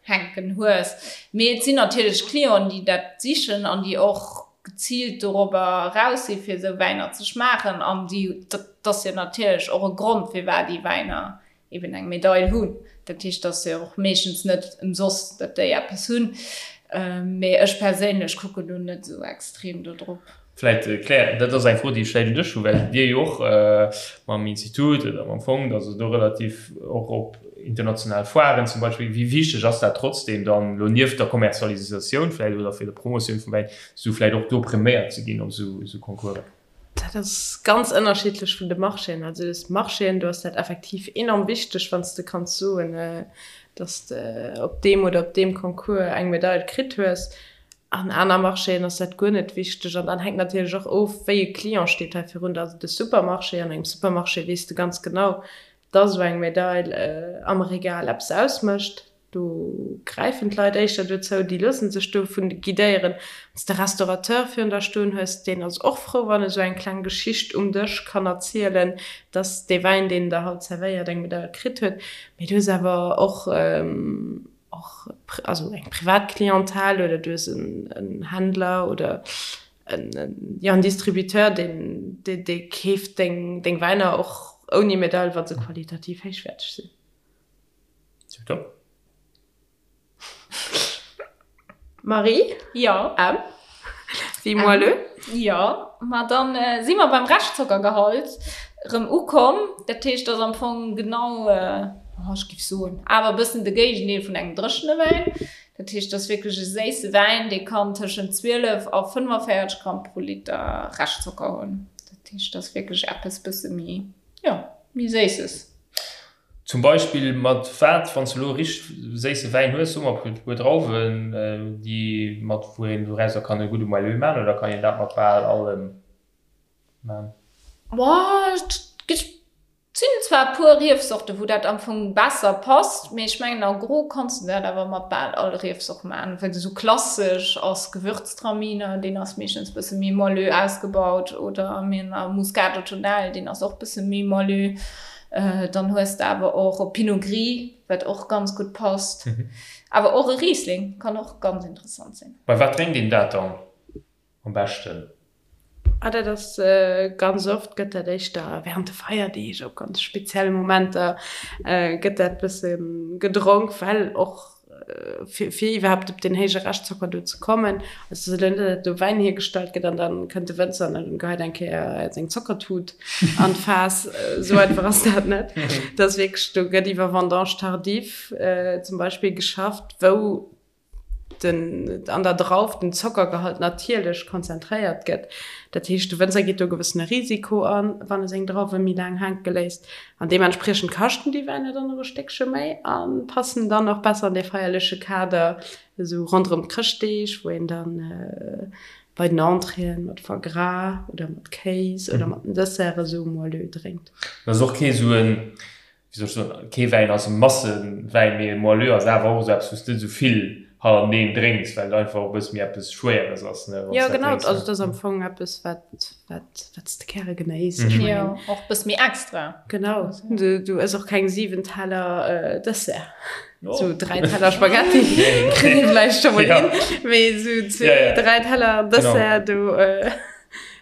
hänken hues. Mee et sinn natierlech Clienten, déi dat sichen an déi och geziilt dorobber eraus si fir esou Wäiner ze schmaachen. An déi, dat ass jo natierlech och e Grond, firwat déi Wäiner eben eng Medail hunn. Dat heescht, et ass jo och meeschtens net ëmsoss, datt déi eppes hunn. Mee ech perséinlech kucken do net esou extrem do drop. Vläit, Claire, dat ass eng Fro, déi ech vläit un dech hu, well Dir jo och mam Institut oder mam Fong, also do relativ och op international Foiren zum Beispill, wéi wichteg ass dat trotzdem dann elo nieft der Kommerzialisatioun vläit oder fir der Promotioun vum Wäin, esou vläit och do präméiert ze ginn op esou Concoursen? Dat ass ganz ënnerschiddlech vun de Marchéen. Also des Marchéen, do ass dat effektiv enorm wichteg, wann s de kanns soen, datt s de op deem oder op deem Concours eng Medail kritt hues. An aner Marchéen ass dat guer net wichteg. An dann hänkt natierlech och of, wéi e Client steet hei virun der. Also de Supermarché, an engem Supermarché weess de ganz genau, dass esou eng Medail am Regal eppes ausmécht. Do gräifen d'Leit éischter dozou, déi loosse sech dovun guidéieren. Wann s de Restaurateur virun der stoen hues, deen ass och frou, wann e sou eng kleng Geschicht um Dësch kann erzielen, dass dee Wäin, deen en der haut zerwéiert, eng Medail kritt huet. Mee du hues awer och och also eng privat Clientèle oder du hues en Händler oder en, jo, en Distributeur, deen, dee keeft deng, deng Wäiner och ouni Medail, wa se qualitativ héichwäerteg sinn. Tiptop. Marie? Jo. M. Wéi moelleux? Jo, ma dann si mer beim Reschtzockergehalt erëm ukomm. Dat heescht, dat ass am Fong genau, ech géif soen, awer e bëssen de Géigendeel vun engem dréchene Wäin. Dat heescht, dat ass wierklech e séisse Wäin, dee kann tëschent 12 a 45 Gramm pro Liter Reschtzocker hunn. Dat heescht, dat ass wierklech eppes bësse méi, jo, méi Séisses. Zum Beispill mat wat, wann s de elo e richteg séisse Wäin hues, soe mer e puer Drauwen, déi mat wou een dorauser kann e gudde Moelleux man, oder kann een dat mat bal allem man? Boah, et gëtt, sinn zwar e puer Riefsorten, wou dat am Fong besser passt, mee ech mengen en gros kanns de dat awer mat bal all Riefsort man, well esou klassesch ass Gewürztraminer, deen ass meeschtens bësse méi moelleux ausgebaut, oder mir hunn Muscat Ottonel, deen ass och bësse méi moelleux. Dann hues de awer och e Pinot Gris, wat och ganz gutt passt. Awer och e Riesling kann och ganz interessant sinn. Bei wat drénkt een dat dann am beschten? Ah, dat ass ganz oft gëtt dat éischter während de Feierdeeg, op ganz spezielle Momenter gëtt dat bësse gedronk, well och fir iwwerhaapt op deen héije Reschtzocker do ze kommen. Also et ass elo net, datt do Wäin hiergestallt gëtt an da kënnt de Wënzer an dann geheit eng Kéier seng Zockertut an d'Faass. Esou einfach ass dat net. Et ass wierklech, do gëtt iwwer Vendange tardive zum Beispill geschafft, wou. den, an der Drauf den Zockergehalt natierlech konzentréiert gëtt. Dat heescht, de Wënzer geet do e gewëssene Risiko an, wann e seng Drauwe méi laang hänke léisst. An deementspriechend kaschten déi Wäiner dann och e Stéckche méi a passen dann och besser an dee feierleche Kader, esou ronderëm d'Chrëschtdeeg, wou een dann bei den Entréeën mat Foie gras oder mat Kéis oder mat den Desserte esou Moelleux drénkt. Dat ass och kee sou en, wéi soll ech soen, kee Wäin ass e Massewäin, mee e Moelleux ass awer och esou eppes, wou s de net esou vill hannerteneen drénks, well et einfach och e bësse méi eppes Schwéieres ass, ne, wann s Jo, dat genau, drénks, also et ass am Fong eppes, wat, wat, wat s de gäre genéiss. Ech mengen. Jo, och e bësse méi extra. Genau, du, du ëss och keng 7 Teller Dessert. Sou 3 Teller Spaghetti kritt ee vläicht scho mol hin, mee sou zwee, dräi Teller Dessert, do,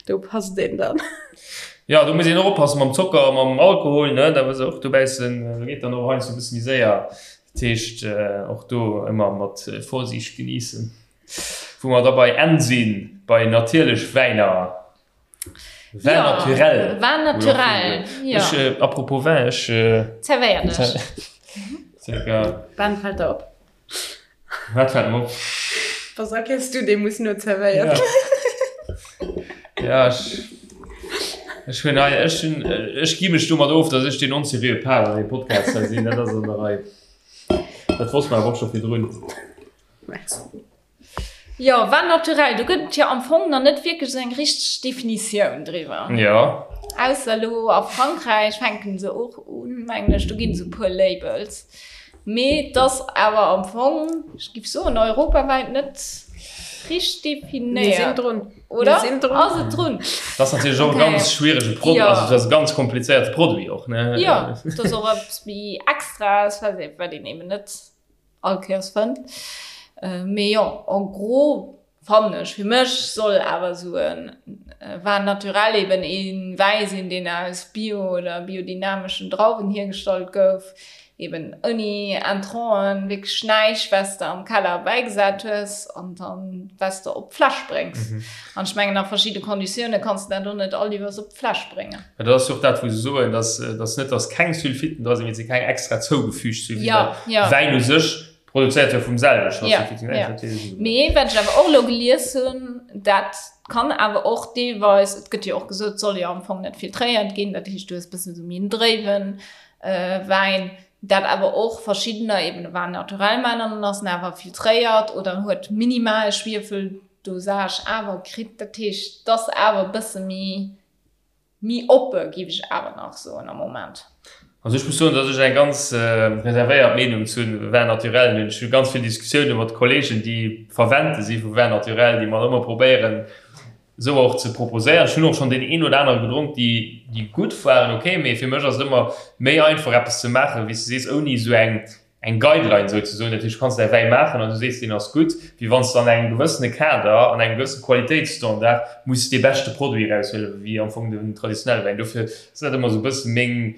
do passt een dann. Jo, do muss een och oppassen mam Zocker a mam Alkohol, ne, da muss och dobäissen, do geet dann och heiansdo e bësse méi séier. Dat heescht, och do ëmmer mat Vorsiicht genießen. Wou mer da bei N sinn, bei natierlech Wäiner, Vin naturel. Vin naturel, jo. Ech, apropos Vin, ech. Zerwéier dech. Circa. Ben fällt der op. Wat fällt mer op? Was erkennst du, dee muss no zerwéiert ginn. Ja, ech, ech hunn hei, ech hunn, ech gi mech domat of, datt ech deen onseriöe Part an deem Podcast hei sinn. Dat ass an der Rei. Dat wosst mer awer och scho virdrun. Merci. Jo, Vin naturel, do gëtt et jo am Fong nach net wierklech esou eng richteg Definitioun driwwer. Jo. Ausser elo a Frankräich fänken se och un, mengen ech, do ginn et esou e puer Labels. Mee et ass awer am Fong, ech giff soen, europawäit net richteg definéiert. Mir sinn drun. Oder? Mir sinn drun. Ass et drun? Dat ass natierlech och e ganz schwierege Produit, also dat ass e ganz komplizéierte Produit och, ne? Jo, et ass och eppes méi Extraes, wat een eben net all Kéiers fënnt. Mee jo, en gros fannen ech, fir mech soll awer esou e Vin naturel eben ee Wäi sinn, deen aus bio oder biodynameschen Drauwen hiergestallt gouf, eben ouni Intranten, wierklech näischt, wat s de am Keller bäigesat hues an dann wat s de op d'Fläsch bréngs. An ech mengen, a verschidde Konditioune kanns de dat och net all iwwers op d'Fläsch bréngen. Mä dat ass jo och dat, wou se soen, dass, dass net, dass keng Sulfiten dra sinn, mee et si keng extra zougefügt Sulfiten. Ja, ja. Wäin u sech produzéiert jo vum selwechten. Ja, ja. Mee wat ech awer och elo gelies hunn, dat kann awer och deelweis, et gëtt jo och gesot, et soll jo am Fong net filtréiert ginn, dat heescht, du hues e bëssen esou méi en dréiwe Wäin, dat awer och verschiddener eben e Vin naturel maachen an dann ass en awer filtréiert oder huet minimal Schwiefeldosage awer kritt. Dat heescht, et ass awer e bësse méi Méi oppe giff ech awer nach soen am Moment. Also ech muss soen, dass ech eng ganz reservéiert Meenung zu Vin naturel hunn. Ech hu ganz vill Diskussioune mat Kollegen, déi Verwendte si vu Vin naturel, déi mer ëmmer probéieren esou och ze proposéieren. Ech hunn och schonn deen een oder anere gedronk, déi déi gutt waren, ok, mee fir mech ass et ëmmer méi einfach eppes ze maachen, wéi s de sees, ouni esou eng eng Guideline souzesoen, dat heescht, du kanns däi Wäi maachen an du sees, deen ass gutt, wéi wann s de an engem gewëssene Kader, an engem gewësse Qualitéitsstandard muss dee beschte Produit eraushuelen, wéi am Fong den traditionelle Wäin. Dofir ass dat ëmmer esou e bësse meng,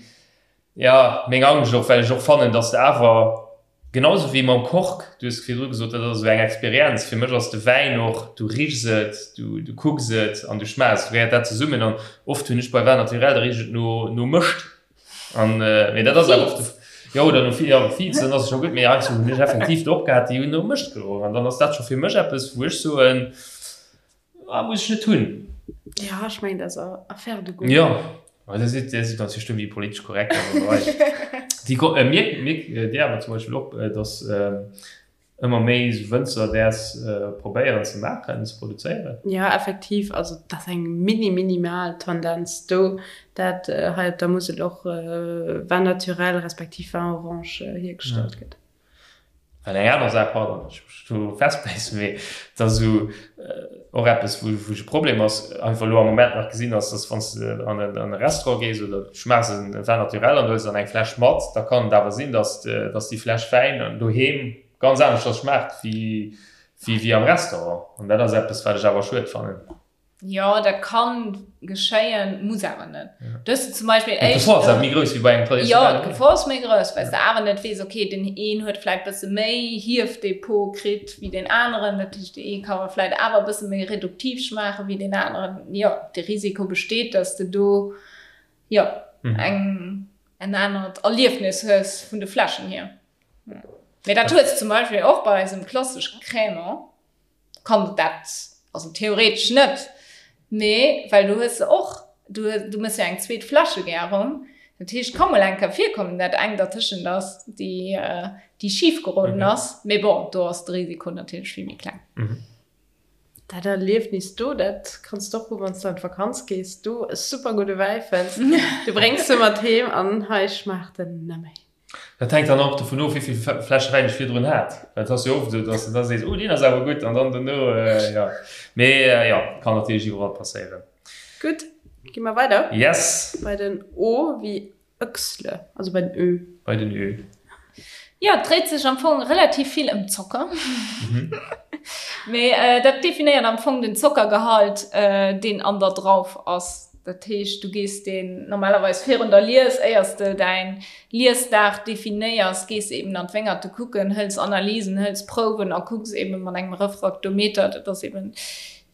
jo, meng Angscht och, well ech och fannen, dass de awer, genau esou wéi mam Kork, du hues virdru gesot, dat ass esou eng Experienz, fir mech ass de Wäin och, du richs et, du, du kucks et an du schmaachs et, du gehéiert dat zesummen an oft hunn ech bei Vin naturel, da richt et no, no Mëscht. An äh, mee dat ass awer oft jo oder no ja, Fiiz, dann ass et scho gutt, mee heiansdo hunn ech effektiv do opgehat, déi hunn no Mëscht geroch an dann ass dat scho fir mech eppes, wou ech soen, ah, muss ech net hunn. Ja, ech mengen, dat ass Affaire de goût. Jo, ma dat sidd, dat sidd natierlech do méi politesch korrekt an der Rei. Déi ko, äh, mierk, mierk Dir awer zum Beispill och, dass äh, ëmmer méi esou Wënzer däers probéieren ze maachen, ze produzéieren? Jo, effektiv. Also et ass eng mini minimal Tendenz do, dat hei op der Musel och Vin naturel respektiv Vin orange hiergestallt gëtt. Well eng aner Saach, pardon, datt ech mech do festbäissen, mee et ass esou och eppes, wou wou ech e Problem ass, einfach elo am Moment nach gesinn ass, datt wann s de an en an e Restaurant gees oder du schmaachs e Vin naturel an du huels dann eng Fläsch mat, da kann et awer sinn, datt datt déi Fläsch Wäin doheem ganz aneschters schmaacht wéi wéi wéi am Restaurant. An dat ass eppes, wat ech awer schued fannen. Jo, dat kann geschéien, muss awer net. Du hues zum Beispill éischt. D'Gefor ass awer méi grouss wéi bei engem traditionellen. Jo, d'Gefor ass méi grouss, well s de awer net weess, okay, den een huet vläit bësse méi Hiefdepot kritt wéi deen aneren. Dat heescht, dee ee ka vläit awer e bësse méi reduktiv schmaache wéi deen aneren. Jo, de Risiko besteet, dass de do, jo, eng, en anert Erliefnis hues vun de Fläschen hier. Mee dat hues de zum Beispill och bei eisem klassesche Crémant, kann dat, also theoretesch net, mee well du hues se och, du du mëss jo eng zweet Fläschegärung, dat heescht ka mol eng Kéier virkommen, dat eng dertëschent ass, déi déi schif geroden ass, mee bon, do ass de Risiko natierlech vill méi kleng. Dat Erliefnis do, dat kanns de och hu wann s de an d'Vakanz gees, do e super gudde Wäi fënns, du bréngs e mat heem an hei schmaacht en nëmme. Dat hänkt dann och dovun of, wéi vill Fläsche Wäin ech virdrun hat. Well et ass jo oft esou, dass de da sees, oh deen ass awer gutt an dann dono, jo. Mee jo, kann natierlech iwwerall passéieren. Gutt, gi mer weider. Yes. Bei den O wéi Öchsle, also bei den Ö. Bei den Ö. Jo, et dréit sech am Fong relativ vill ëm Zocker. Mee dat definéiert am Fong den Zockergehalt, deen an der Drauf ass. Dat heescht, du gees deen normalerweis virun der Lies, éiers de däin Liesdag definéiers, gees de eben an d'Wéngerte kucken, hëls Analysen, hëls Prouwen a kucks eben mat engem Refraktometer, dat ass eben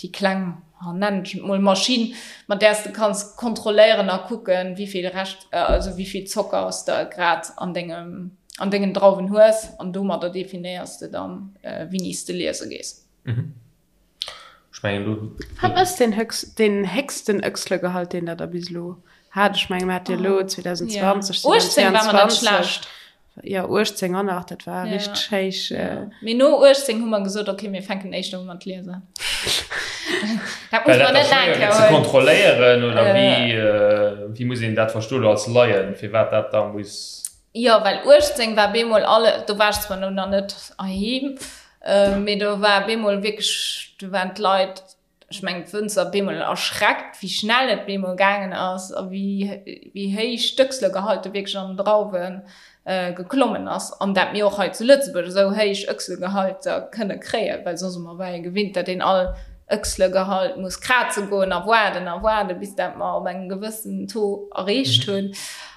déi kleng, nennen ech et mol, Maschinn, mat där s de kanns kontrolléieren a kucken, wéi vill Rescht, also wéi vill Zocker s de grad an dengem, an dengen Drauwen hues an domadder definéiers de dann, wéini s de liese gees. Ech mengen do. Wat ass deen höchst, deen héchsten Öchslegehalt, deen Der da bis elo hat? Ech mengen, mir hate jo elo 2020, 18 war mer net 2022. schlecht. Jo, 18 an nach, dat war richteg héich. Mee no 18 hu mer gesot, okay, mir fänken éischter u mat liesen. Dat muss Well mer dat net da schwéier laang gëtt ze huelen. kontrolléieren, oder wéi, wéi muss een dat verstoen elo als Laien, firwat dat da muss. Jo, well 18 war bemol alle, do war ech zwar elo nach net heiheem, Mee do war bemol wierklech, do waren d'Leit, ech mengen d'Wënzer, bemol erschreckt, wéi schnell et bemol gaangen ass a wéi, wéi héich d'Öchslegehalte wierklech an den Drauwe geklommen ass. An dat mir och hei zu Lëtzebuerg esou héich Öchslegehalter kënne kréien, well soss ëmmer war ee gewinnt, dat een all Öchslegehalt muss kraze goen a waarden a waarden, bis dat mer op engem gewëssen Taux erreecht hunn.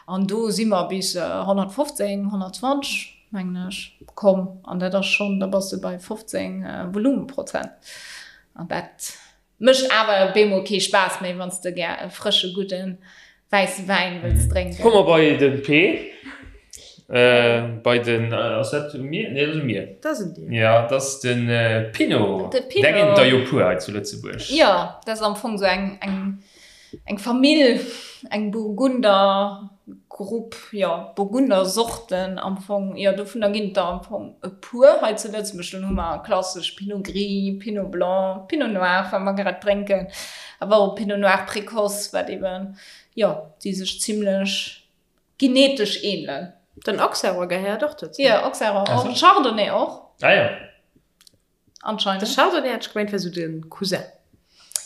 An do si mer bis 115, 120. mengen ech, komm. An dat ass schonn, da bass de bei 15 Volumenprozent. An dat mécht awer bemol kee Spaass méi, wann s de gär e frësche, gudde wäisse Wäin wëlls drénken. Komme mer bei de P. Bei den, ass dat u mir? Nee, dat ass u mir. Dat ass un dir. Jo, dat ass de Pinot. De Pinot. Där ginn et der jo puer hei zu Lëtzebuerg. Jo, dat ass am Fong esou eng, eng Eng Famill, eng Burgundergrupp, jo, Burgundersorten am Fong, jo, dovunner ginn et der am Fong e puer hei zu Lëtzebuerg. Dann hu mer klassesch Pinot Gris, Pinot Blanc, Pinot Noir, wat mer grad drénken, awer och Pinot Noir Précoce, wat eben, jo, déi sech zimlech genetesch ähnelen. Den Auxerrois gehéiert och dozou. Jo, Auxerrois och, Chardonnay och. Ah jo. Anscheinend. De Chardonnay hat ech gemengt wär sou de Cousin.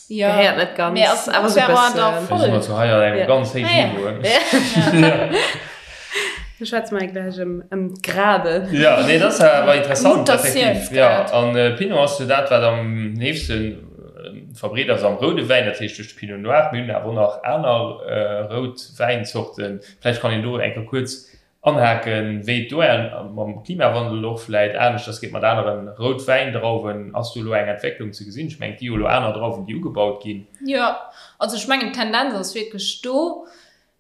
Ja. Gehéiert net ganz, Mee ass awer sou Auxerrois da bëssen. voll. Mir sinn also hei an engem ganz héijen Niveau. Ja. Da schwätze mer gläich ëm ëm d'Graden. Ja, nee, dat ass awer interessant, effektiv. Ja, Mutatiounsgrad. an Pinot ass jo dat, wat am heefsten verbreet ass am roude Wäin, dat heescht duerch de Pinot Noir. Mir hunn awer och nach aner rout Wäinzorten. Vläicht kann een do eng Kéier kuerz Anhaken, wéi et do mam Klimawandel och vläit aneschters geet mat aneren Routwäindrauwen. Ass do elo eng Entwécklung ze gesinn? Ech mengen, et gi jo elo aner Drauwen, déi ugebaut ginn. Jo, also ech mengen d'Tendenz ass wierklech do.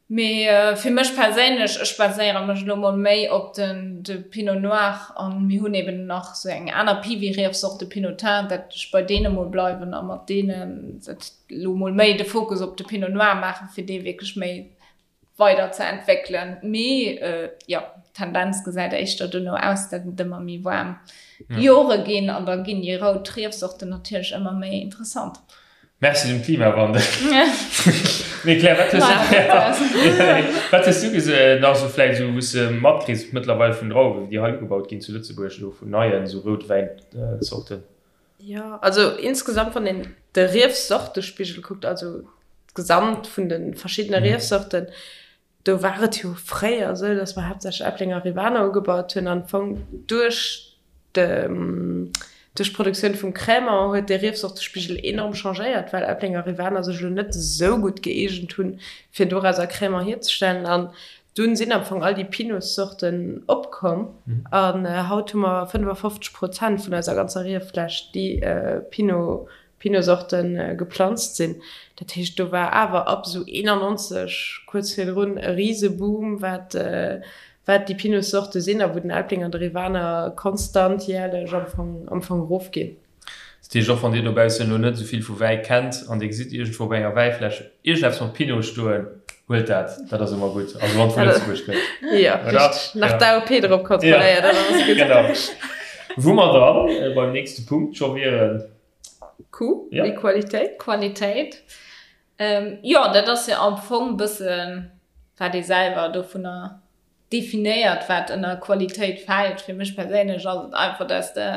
Mee fir mech perséinlech, ech baséiere mech elo mol méi op den de Pinot Noir an mir hunn eben nach esou eng aner Piwi-Riefsort, de Pinotin, dat ech bei deene mol bleiwen a mat deenen dat elo mol méi de Fokus op de Pinot Noir maachen, fir dee wierklech méi weider ze entwéckelen. Mee jo, d'Tendenz gesäit éischter dono aus, datt et ëmmer méi waarm Jore ginn an da ginn déi rout Riefsorten natierlech ëmmer méi interessant. Merci dem Klimawandel. Mee Claire, wat hues du, wat hues du gese nach esou vläicht esou wou s de matkriss mëttlerweil vun Drauwen, déi hei ugebaut ginn zu Lëtzebuerg elo vun neien esou Routwäinzorten? Jo, also insgesamt wann een de Riefsortespigel kuckt, also d'Gesamt vun de verschiddene Riefsorten, do war et jo fréier esou, datt mer haaptsächlech Äpplenger Rivaner ugebaut hunn an am Fong duerch de duerch d'Produktioun vum Crémant huet dee Riefsortespigel enorm changéiert, well Äpplenger Rivaner sech elo net esou gutt gëeegent hunn, fir dorauser Crémant hierzestellen. An Dunn sinn am Fong all déi Pinotsorten opkomm an haut hu mer 55 Prozent vun eiser ganzer Rieffläch, déi Pinot, Pinotsorte geplanzt sinn. Dat heescht, do war awer ab esou 91, kuerz virdrun, e Riseboom, wat. wat déi Pinot-Sorte sinn a wou den Elbling an de Rivaner konstant jährlech am Fong, am Fong erofginn. Dat heescht, och wann Dir dobaussen elo net esou vill vu Wäi kennt an Dir gesitt iergendwou op enger Wäifläsch iergendeppes mat Pinot stoen, huelt dat, dat ass ëmmer gutt. Also wann et vu Lëtzebuerg kënnt. Jo, richteg. Nach d'AOP drop kontrolléiert, dann ass et gutt. Genau. Wou mer dann beim nächste Punkt scho wieren. Q, wéi Qualitéit. Qualitéit. Jo, dat ass jo am Fong e bëssen, wat ee selwer dovunner definéiert, wat ënner Qualitéit fält. Fir mech perséinlech ass et einfach, dass de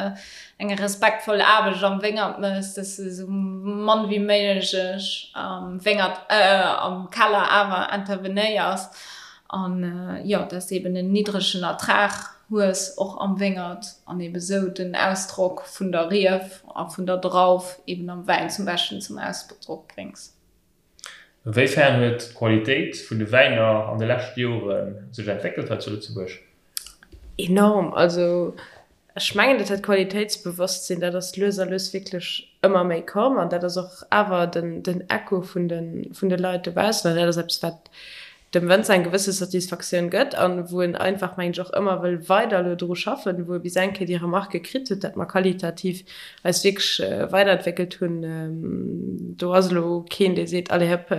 eng respektvoll Aarbecht am Wéngert méchs, dass de esou mann wéi méiglech am Wéngert, am Keller awer intervenéiers an, jo, dass de eben en niddregen Ertrag hues, och am Wéngert, an eben esou den Ausdrock vun der Rief a vun der Drauf eben am Wäin zum Beschten zum Ausdrock bréngs. Wéi fern huet d'Qualitéit vun de Wäiner an de leschte Jore sech entwéckelt hei zu Lëtzebuerg? Enorm! Also ech mengen, dat dat Qualitéitsbewosstsinn, dat ass lues a lues wierklech ëmmer méi komm an dat ass och awer den den Echo vun de vun de Leit dobaussen an dat ass eppes, wat dem Wënzer eng gewësse Satisfaktioun gëtt an wou en einfach, mengen ech, och ëmmer wëll weider elo dru schaffen, wou e bis eng Kéier déi Remarque kritt huet, dat mer qualitativ eis wierklech weiderentwéckelt hunn. Do ass elo keen, dee seet, allez hëpp,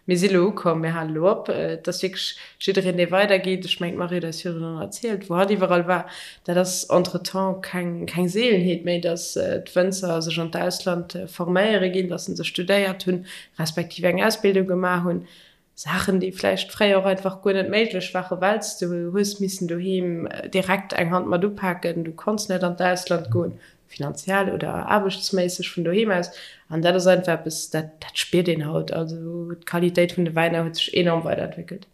mir si elo ukomm, mir hale elo op. Et ass wierklech jiddereen, dee weidergeet. Ech mengen, d'Marie huet eis virdrun och erzielt, wou hatt iwwerall war. Dat ass entretemps keng, keng Seelenheet méi, datt d'Wënzer sech an d'Ausland forméiere ginn, datt se studéiert hunn, respektiv eng Ausbildung gemaach hunn. Saachen, déi vläicht fréier och einfach guer net méiglech waren, well s de hues missen doheem direkt eng Hand mat upaken, du konns net an d'Ausland goen, finanziell oder aarbechtsméisseg vun doheem aus. An dat ass einfach eppes, dat dat spiert een haut. Also d'Qualitéit vun de Wäiner huet sech enorm weiderentwéckelt.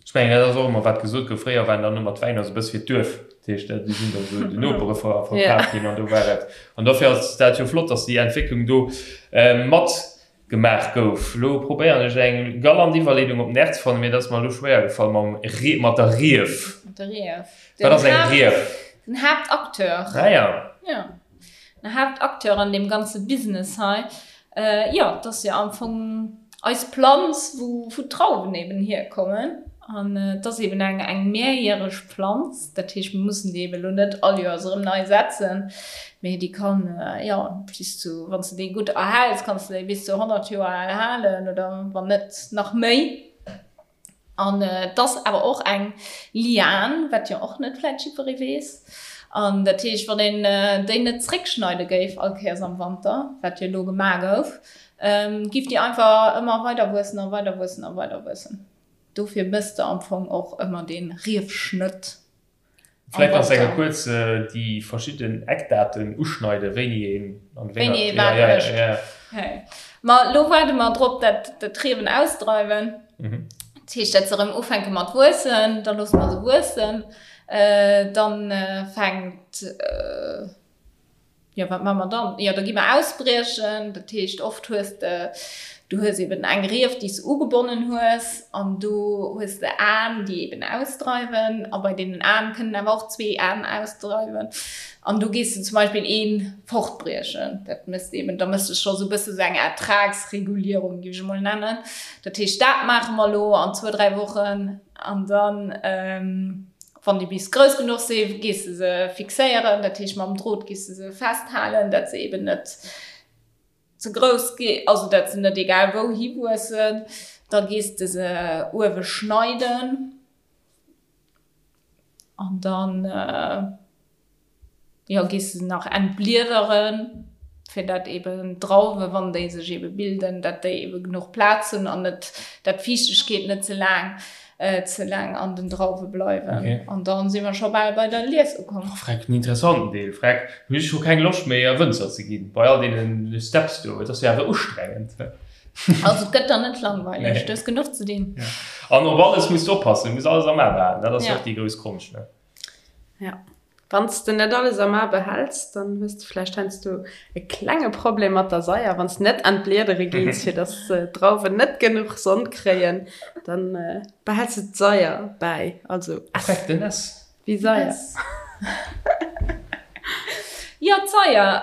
Ech mengen, dat ass och ëmmer wat gesot gouf, fréier waren dann ëmmer d'Wäiner esou e bësse fir d'Duerf, dat heescht, déi sinn dann esou den Nopere verkaf ginn an do war et. An dofir ass dat jo flott, datt déi Entwécklung do mat Gemaach gouf. Lo probéieren ech eng galant Iwwerleedung op den R ze fannen, mee dat ass mer elo schwéier gefall mam Rie, mat der Rief. Mat der Rief. Wat ass eng Rief? Den Haaptacteur. Ah ja. Ja. Den Haaptacteur an deem ganze Business hei. Jo, et ass jo am Fong eis Planz, wou d'Drauwen eben hierkommen. An et ass eben eng eng mehrjähreg Planz, dat heescht mir mussen déi eben elo net all Joers erëm nei setzen, mee déi kann jo bis zu, wann s de déi gutt erhäls, kanns de déi bis zu 100 Joer al halen oder wann net nach méi. An et ass awer och eng Lian, wat jo och net vläit jiddweree weess. An dat heescht, wann een déi net zréckschneide géif all Kéiers am Wanter, wat jo elo gemaach gouf, giff déi einfach ëmmer weider wuessen a weider wuessen a weider wuessen. Dofir mëss de am Fong och ëmmer dee Riefschnëtt am Vläit kanns de enke kuerz déi verschidden Eckdaten uschneiden, wéini een an wéi Wéini ee wat mécht. Ma elo waarde mer drop, dat d'Riewen ausdreiwen. Dat heescht, dat se erëm ufänke mat wuessen. Da loosse mer se wuessen. Dann fänkt. Jo, wat maache mer dann? Jo, da gi mer ausbriechen. Dat heescht, oft hues de, du hues eben eng Rief, déi s de ugebonnen hues, an do hues de Aen, déi eben ausdreiwen. A bei deenen Aen kënnen awer och zwee Aen ausdreiwen. An do gees de zum Beispill ee fortbriechen. Dat méchs de eben, da méchs de scho sou e bësse sou eng Ertragsregulierung, géif ech emol nennen. Dat heescht, dat maache mer elo an zwou, dräi Wochen. An dann. Wann déi bis grouss genuch si, gees de se fixéieren, dat heescht mam Drot gees de se festhalen, dat se eben net ze grouss gi, also dat se net egal wou hiwuessen. Da gees de se uewe schneiden an dann. Jo, gees de se nach entbliederen, fir dat eben d'Drauwe, wann déi sech ebe bilden, dat déi ebe genuch Plaz hunn an net, dat d'Fiichtegkeet net ze laang, ze laang an den Drauwe bleiwen. Okay. An dann si mer scho bal bei der Lies ukomm. Oh, freck, den interessanten Deel, freck, hunn ech scho keng Loscht méi a Wënzer ze ginn, bei all deenen Steps do, et ass jo awer ustrengend. Also et gëtt der net langweileg, du hues genuch ze dinn. Ja. An op alles muss de oppassen, du muss alles am A behalen, dat ass jo Ja. och déi grouss Konscht, ne? Ja. Wann s de net alles am A behäls, dann hues de vläicht heiansdo e klenge Problem mat der Saier, wann s net an d'Bliedere gees, fir dass d'Drauwen net genuch Sonn kréien, dann behäls de d'Saier bäi. Also S. Freck, den S. Wéi Saier. Jo, d'Saier,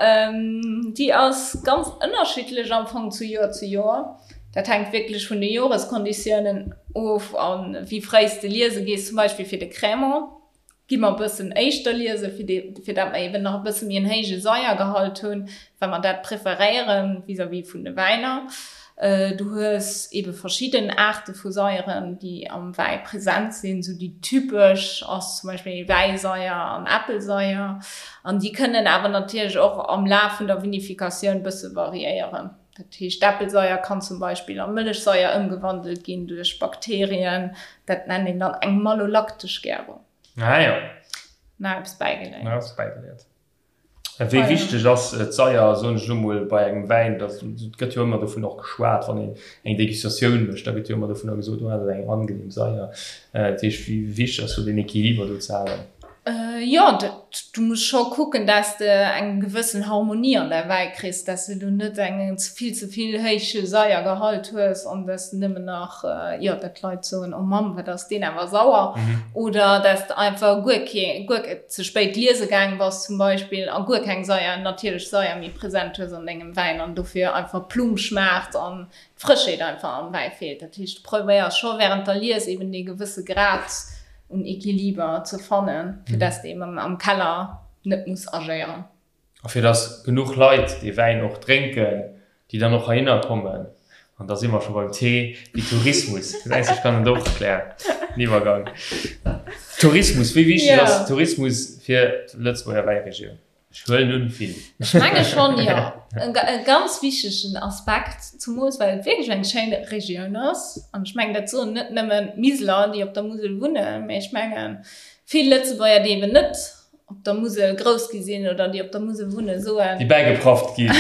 déi ass ganz ënnerschiddlech am Fong zu Joer zu Joer. Dat hänkt wierklech vun de Joreskonditiounen of a wéi fréi s de liese gees. Zum Beispill fir de Crémant gi mer e bëssen éischter liese fir dee, fir dat mer eben nach e bësse méi en héije Saiergehalt hunn, well mer dat preferéiere vis-à-vis vun de Wäiner. Du hues ebe verschidden Aarte vu Saieren, déi am Wäi present sinn. Esou déi typesch ass zum Beispill Wäisaier an Äppelsaier. An déi kënnen awer natierlech och am Laf vun der Vinifikatioun bësse variéieren. Dat heescht, d'Äppelsaier kann zum Beispill a Mëllechsaier ëmgewandelt ginn duerch Bakterien. Dat nennt een dann eng malolaktesch Gärung. Ah jo. Nach eppes bäigeléiert. Nach eppes bäigeléiert. Wéi wichteg ass d'Saier, soen ech elo mol, bei engem Wäin? Et gëtt jo ëmmer dovun och geschwat, wann een eng Degustatioun mécht, da gëtt jo ëmmer dovunner gesot, oh dat ass eng angenehm Saier. Dat heescht, wéi wichteg ass do deen Equiliber do ze halen? Jo, du muss scho kucken, dass de eng gewëssen Harmonie an däi Wäi kriss, dass de elo net eng vill ze vill héije Saiergehalt hues an dass de nëmmen nach, jo, dat d'Leit soen, oh Mamm, wat ass deen awer sauer, oder dass de einfach guer kee, guer ze spéit liese gaang bass zum Beispill a guer keng Saier, natierlech Saier méi present hues an dengem Wäin an dofir einfach plum schmaacht an d'Frëschheet einfach am Wäi feelt. Dat heescht, du probéiers scho während der Lies eben dee gewësse Grad un Equiliber ze fannen, fir dass de eben am Keller net muss agéieren. A fir dass genuch Leit dee Wäin och drénken, déi dann och heihinner kommen. An da si mer scho beim T wéi Tourismus. Gesäis, ech kann et och, Claire, den Iwwergang. Tourismus, wéi wichteg ass Tourismus fir d'Lëtzebuerger Wäiregioun? Ech huelen un, vill. Ech menge schonn, jo. E ganz wichtegen Aspekt, zumools well et wierklech eng schéin Regioun ass. An ech mengen, dat soen net nëmmen d'Miseler, déi op der Musel wunnen, mee ech mengen, vill Lëtzebuerger, déi eben net op der Musel grouss gi sinn oder déi op der Musel wunnen, soen. Déi bäigeprafft ginn,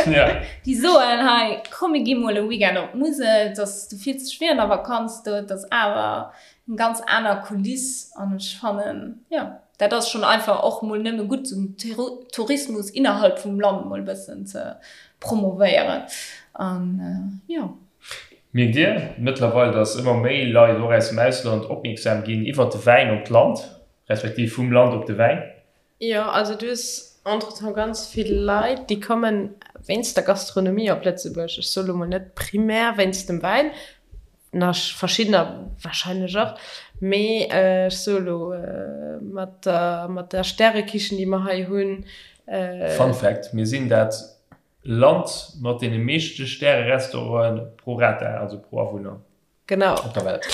jo. Déi soen, hei, komm mir gi mol e Weekend op d'Musel, et ass, du fills dech wéi an der Vakanz do, et ass awer eng ganz aner Kuliss an ech fannen, jo, dat ass schonn einfach och mol nëmme gutt, den Tourismus innerhalb vum Land mol e bëssen ze promovéieren an jo. Mierkt Dir mëttlerweil, dass ëmmer méi Leit och aus dem Ausland opmierksam ginn iwwert de Wäin op d'Land? Respektiv vum Land op de Wäin. Jo, also du hues entretemps ganz vill Leit, déi kommen wéinst der Gastronomie op Lëtzebuerg. Ech soe lo mol net primär wéinst dem Wäin, nach verschiddener warscheinlech och, mee ech soe lo mat der, mat der Stärekichen, déi mer hei hunn. Fun Fact, Mir sinn dat Land mat deene meeschte Stärerestauranten pro rata, also pro Awunner. Genau. Op der Welt.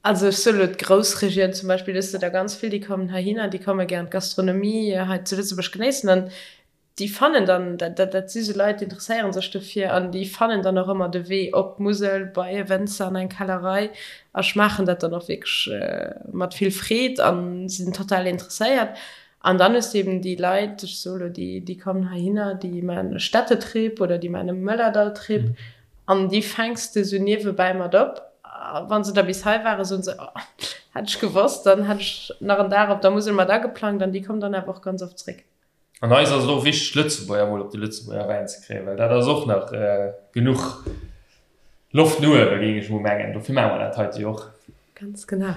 Also ech soe lo d'Groussregioun zum Beispill, do hues de der ganz vill, déi kommen heihinner, déi komme gären d'Gastronomie hei zu Lëtzebuerg genéissen an déi fannen dann, dat, dat si sou Leit, déi interesséiere sech dofir an déi fannen dann och ëmmer de Wee op d'Musel bei e Wënzer an eng Kellerei a schmaachen dat dann och wierklech mat vill Freed a sinn total interesséiert. An dann hues de eben déi Leit, ech soe lo déi, déi kommen heihinner, déi maachen e Städtetrip oder déi maachen e Mëllerdalltrip An déi fänks de sou niewebäi mat op. A wa se da bis hei waren, soen se, Oh, hätt ech gewosst, dann hätt ech nach en Dag op der Musel mat ageplangt. An déi kommen dann awer och ganz oft zréck. An eis ass et och wichteg, Lëtzebuerger mol op de Lëtzebuerger Wäin ze kréien, well dat ass och nach genuch Loft no uewen, géing ech mol mengen. Dofir maache mer dat heite jo och. Ganz genau.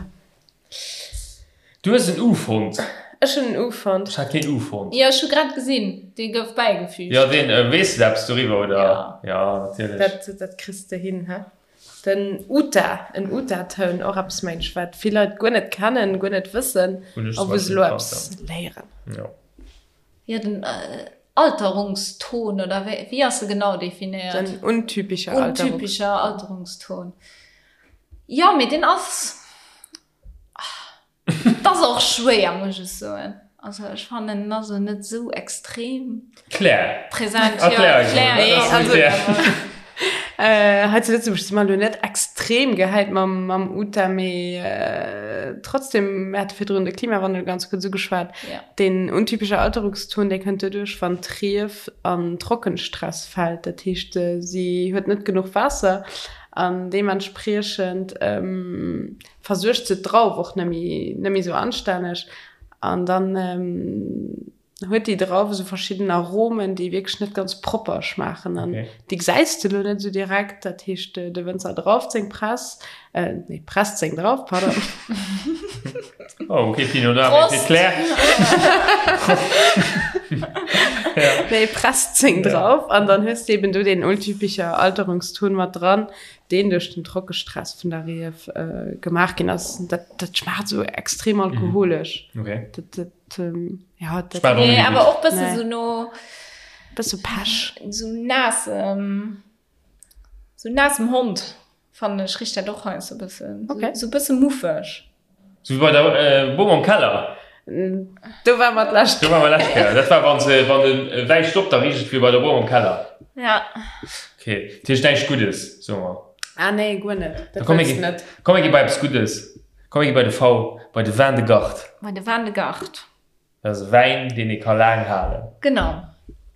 Du hues en U fonnt. Ech hunn en U fonnt. Ech hat keen U fonnt. Jo, ech hu grad gesinn, dee gouf bäigefügt. Jo, deen. Weess de eppes doriwwer, oder? Jo. Jo, natierlech. Dat, dat kriss de hin, hä? Den Uta, en Uta-Toun, och eppes, mengen ech, wat vill Leit guer net kennen, guer net wëssen Hunn ech a zum wou se Beispill elo gekannt, eppes léieren. jo. Jo, den Alterungston, oder wéi, wéi ass e genau definéiert? Den untypischer Alterungston. Untypischer Alterungston. Jo, mee deen ass. Et ass och schwéier, muss ech soen. Also ech fannen, en ass elo net esou extrem Claire. präsent. Jo, Erklär eis Claire, emol, wat ass Also, Claire? hei zu Lëtzebuerg si mer elo net extrem gehäit mam, mam Uta, mee trotzdem, mir hate virdrun de Klimawandel ganz kuerz ugeschwat. Ja. Deen untypesche Alterungston, dee kënnt doduerch, wann d'Rief an Trockenstress fält. Dat heescht, si huet net genuch Waasser an deementspriechend versuergt se d'Drauf och net méi, net méi esou anstänneg an dann huet déi Drauf esou verschidden Aromen, déi wierklech net ganz propper schmaachen an déi gesäis de lo net esou direkt. Dat heescht, de Wënzer drauft seng Press, nee, presst seng Drauf, pardon. Oh, okay, Pinot Noir, mee fir d'Claire. Nee, Press 10 drauf an dann hues de eben do deen untypischer Alterungston mat dran, deen duerch den Trockestress vun der Rief gemaach ginn ass. Dat, dat schmaacht esou extrem alkoholesch. Okay. Dat, dat, ja, dat. Schmaacht och Nee, net awer gutt. och bësse Nee. sou no. Bësse Pech. Sou naassem, sou naassem Hond. Fannen ech richt dat och heiansdo e bëssen. Okay. Sou e bësse muffeg. Sou wéi bei der Bom am Keller. Do war mer d'lescht. Do war mer d'lescht Kéier. Dat war wann se, wann de Wäi stoppt, da richt et wéi bei der Bom am Keller. Ja. Okay. Dat heescht näischt Guddes, soe mer. Ah nee, guer net. Da Dat komm mir wëlls gi, net. komm mir gi bei eppes Guddes. Komm mir gi bei de V, bei de Vin de Garde. Bei de Vin de Garde. Dat ass e Wäin, deen ee ka laang halen. Genau.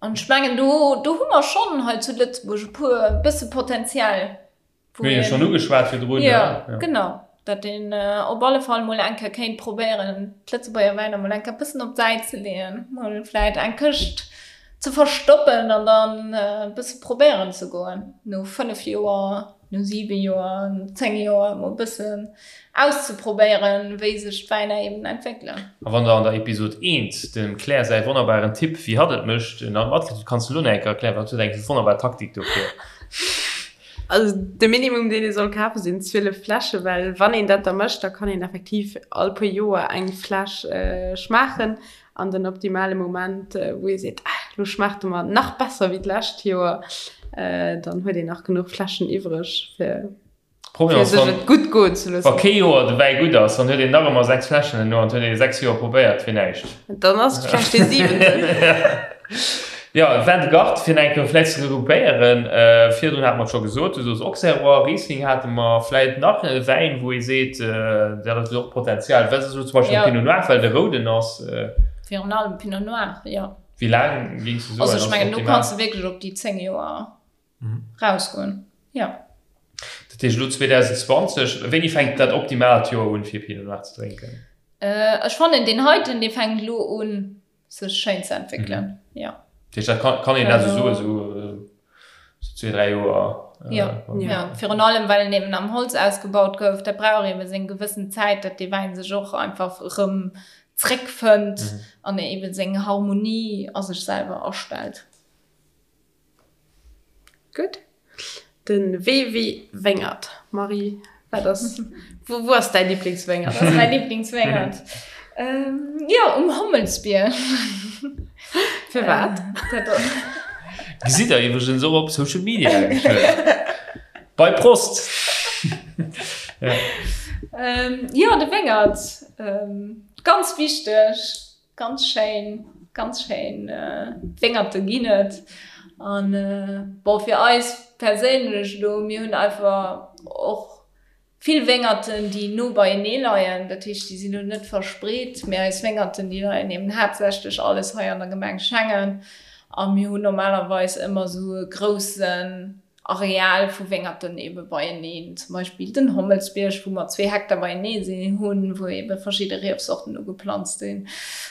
An ech mengen, do, do hu mer schonn hei zu Lëtzebuerg e puer, e bësse Potenzial, wou Mir hunn jo schonn ugeschwat virdrun, ne? Jo, genau. Datt een op alle Fall mol eng Kéier kéint probéieren, d'Lëtzebuerger Wäiner mol eng Kéier e bëssen op d'Säit ze leeën, mol vläit eng Këscht ze verstoppen an dann e bësse probéieren ze goen no 5 Joer. no 7 Joer, no 10 Joer emol e bëssen auszeprobéieren, wéi sech d'Wäiner eben entwéckelen. A wann der an der Episod 1 dem Claire säi wonnerbaren Tipp, wéi hatt et mécht, nach matkritt hutt, kanns de lo nach eng Kéier erklären, well hatt huet eng wonnerbar Taktik dofir. Also de Minimum deen ee soll kafe sinn 12 Fläsche, well wann een dat da mécht, da kann een effektiv all puer Joer eng Fläsch schmaachen An den optimale Moment, wou ee seet, ah, lo schmaacht e mer nach besser wéi d'lescht Joer, dann huet een nach genuch Fläschen iwwreg, fir Problem ass, sech wann, et gutt goen ze wa loossen. kee Joer de Wäi gutt ass, dann huet een nach ëmmer 6 Fläschen herno an huet ee 6 Joer probéiert fir näischt. Dann ass et vläicht dee siwenten. Jo, Vin de Garde, fir nach eng Kéier vläicht ze regroupéieren, virdrun hate mer et scho gesot, du soos Auxerrois, Riesling hate mer, vläicht nach e Wäin, wou ee seet, dat huet och Potenzial, wat ass elo zum Beispill Jo. Pinot Noir, well de rouden ass. Virun allem Pinot Noir, jo. Wéi laang géings du soen, Also ass ech mengen, do optimal? kanns de wierklech op déi 10 Joer rausgoen, jo. Dat heescht elo 2020, wéini fänkt dat optimaalt Joer un, fir Pinot Noir ze drénken? Ech fannen deen heiten, dee fänkt elo un, sech schéin ze entwéckelen, jo. Dat heescht, dat kann, kann een also soen, esou zwee, dräi Joer? Jo, jo, virun allem well en eben am Holz ausgebaut gouf, dat brauch eben seng gewëssen Zäit, datt dee Wäin sech och einfach erëm zréckfënnt an eben seng Harmonie a sech selwer astellt. Gutt. De Wee wéi Wéngert. Marie, wat ass, wou, wou ass däi Liblingswéngert? Wat ass mäi Liblingswéngert? Jo, um Hommelsbierg. Firwat? Gesitt der iwwregens och op Social Media geschwënn. Bei Prost! Jo, de Wéngert, ganz wichteg. Ganz schéin, ganz schéin Wéngerte ginn et. An bon, fir eis perséinlech elo, mir hunn einfach och vill Wéngerten, déi no beienee leien. Dat heescht, déi sinn elo net verspreet, mee eis Wéngerten, déi leien eben haaptsächlech alles hei an der Gemeng Schengen. A mir hunn normalerweis ëmmer esou e groussen Areal vu Wéngerten ebe beieneen, zum Beispill den Hommelsbierg, wou mer zwee Hektar beienee sinn hunn, wou ebe verschidde Riefsorten ugeplanzt sinn,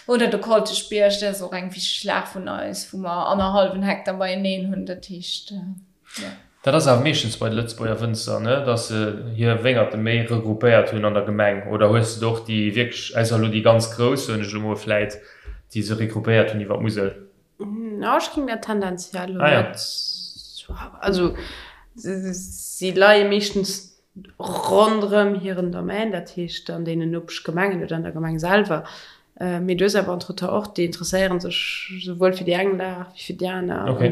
oder de Kolteschbierg, dat ass och eng wichteg Lag vun eis, wou mer annerhallwen Hektar beieneen hunn. Dat heescht, jo. Dat ass awer meeschtens bei de Lëtzebuerger Wënzer, ne, datt se hir Wéngerte méi regroupéiert hunn an der Gemeng. Oder hues de och déi wierklech, ausser elo déi ganz grouss, soen ech elo mol, vläit, déi se regroupéiert hunn iwwer d'Musel? Na, ech ging dat tendenziell ah, ja. net. Also si leie meeschtens ronderëm hiren Domaine, dat heescht an deenen Nopeschgemengen oder an der Gemeng selwer. Äh, mee du hues awer entretemps och, déi interesséieren sech souwuel fir déi eng Lag wéi fir déi aner. Okay.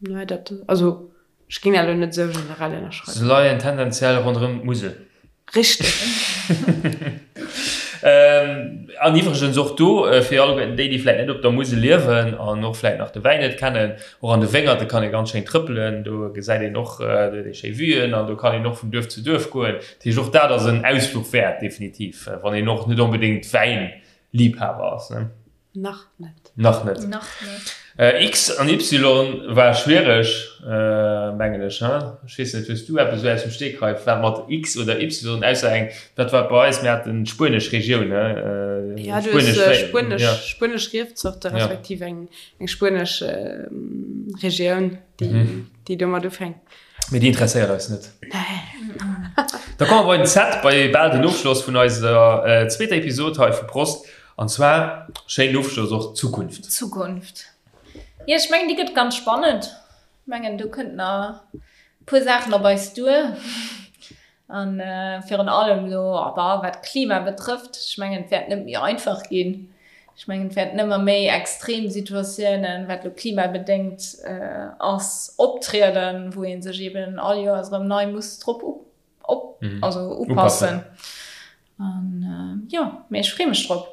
Nei, dat, also Ech géing dat elo net esou generell ënnerschreiwen. Se leien tendenziell ronderëm d'Musel. Richteg. An iwwregens och do, fir alleguerten déi, déi vläit net op der Musel liewen an och vläit nach de Wäin net kennen, och an de Wéngerte kann ee ganz schéin trëppelen. Do gesäit een och, do huet ee schéi Vuen an do kann een och vun Duerf zu Duerf goen. Dat heescht, och dat ass en Ausfluch wäert, definitiv, wann een och net onbedéngt Wäinliibhaber ass. Nach net. Nach net. Nach net. X an Y war schwiereg, mengen ech, he? Ech weess net, hues du eppes esou aus dem Stegreif, wat mat X oder Y, ausser eng, dat war bei eis, mir haten d'spuenesch Regioun, he? Ja, du hues spuenesch, spuenesch Riefzorte respektiv eng, eng spuenesch Regioun, déi, déi domat ufänkt. Mee déi interesséiert eis net. Nee. Da komme mer bei den Z, bei bal den Ofschloss vun eiser zweeter Episod hei vu Prost. An zwar, schéinen Ofschloss och, d'Zukunft. D'Zukunft. Jo, ech mengen, déi gëtt ganz spannend. Ech mengen, do kënnt nach e puer Saachen op eis duer. A virun allem elo, bah, wat d'Klima betrëfft, ech mengen, et wäert net méi einfach ginn. Ech mengen, et wäerten ëmmer méi extrem Situatiounen, wat elo klimabedéngt ass, optrieden, wou ee sech eeben all Joers erëm nei muss drop op, also upassen. An jo, mee ech freeë mech drop.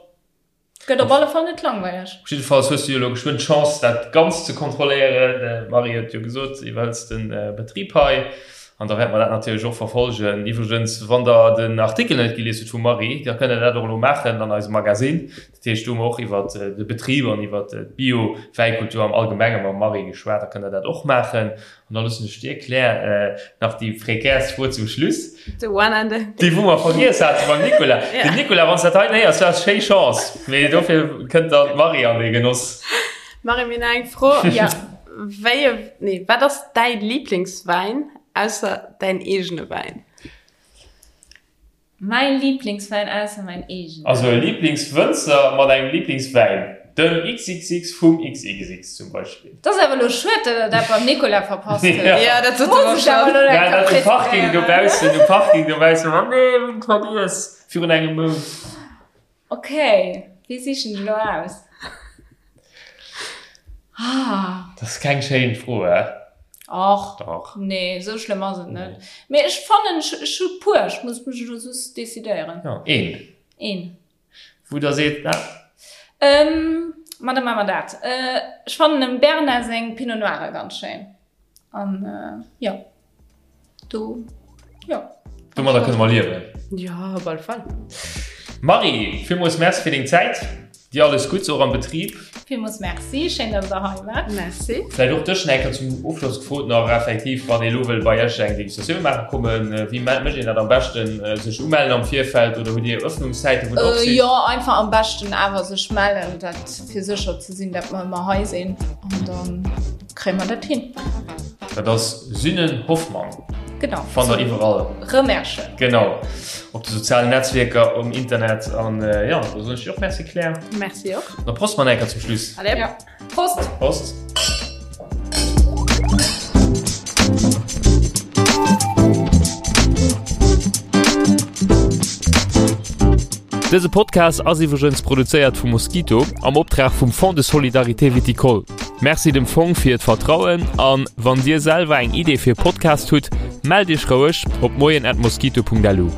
Gëtt op alle Fall net langweileg. Op jiddefalls hues du jo elo geschwënn d'Chance dat Ganzt ze kontrolléieren. D'Marie huet jo gesot, si iwwerhëlls de Betrib hei an da wäerte mer dat natierlech och verfolgen. Iwwregens, wann der den Artikel net gelies hutt vum Marie, da kënnt der dat och elo maachen an eisem Magasinn. Dat heescht, do hu mer och iwwer de Betrib an iwwer d'Bio-Wäikultur am Allgemenge mam Marie geschwat. Da kënnt der dat och maachen. An da loossen ech dir, Claire, nach déi prekärst Fro zum Schluss. The one and the. Déi wou mer vergiess hate beim Nicolas. Den Nicolas, wann s dat hei héiers, du has schéi Chance, mee dofir kënnt dann d'Marie an dee Genoss. Marie, mir hunn nach eng Fro. Ja. Wéi e, nee, wat ass däi Liblingswäin, ausser däin eegene Wäin? Mäi Lieblingswäin ausser mäin eegenen. Also e Lieblingswënzer mat engem Lieblingswäin. Den XXX vum XXX zum Beispill. Dat ass awer elo schued, dat der dat beim Nicolas verpasst hutt. Ja, dat sot en och schon. Ja, dat um Parking dobaussen, um Parking dobaussen, oh nee, hunn et vergiess virun engem Mount. Ok, wéi sichen ech elo aus? Ah. Dat ass keng schéin Fro, hä? Och. Dach. Nee, esou schlëmm ass et net. Mee ech fannen, ech, ech hu puer, ech muss mech elo just decidéieren. Jo, een. Een. Wou der seet, na. Ähm, ma da maache mer dat. Ech fannen dem Bernard seng Pinot Noire ganz schéin. An, jo. Do, jo. Domadder kënne mer liewen. Jo, op alle Fall. Marie, villmools Merci fir deng Zäit. Dir alles Gutts, och am Betrib. Villmools Merci, schéin, dass der hei waart. Merci. Vläicht och dech nach eng Kéier zum Ofschloss gefrot nach effektiv, wann ee lo wëll bei Iech eng Degustatioun maache kommen, wéi mécht een dat am beschten? Sech umellen am Virfeld oder hutt Dir Öffnungszäiten, wou der op sidd? Jo, einfach am beschten awer sech mellen, dat fir sécher ze sinn, dat mer ëmmer hei sinn an dann. Kréie mer dat hin? Dat ass Synnen Hoffmann. Genau. Fannt der iwwerall. Remerschen. Genau. Op de sozialen Netzwierker, um Internet. An äh, ja, da soen ech dir och Merci, Claire. Merci och. Da prost mer enker zum Schluss. Allez. Ja. Prost. Prost. Dëse Podcast ass iwwregens produzéiert vum Mosquito am Optrag vum Fonds de Solidarité Viticole. Merci dem Fong fir d'Vertrauen an wann dir selwer eng Idee fir e Podcast hutt, mellt iech roueg op moien@mosquito.lu.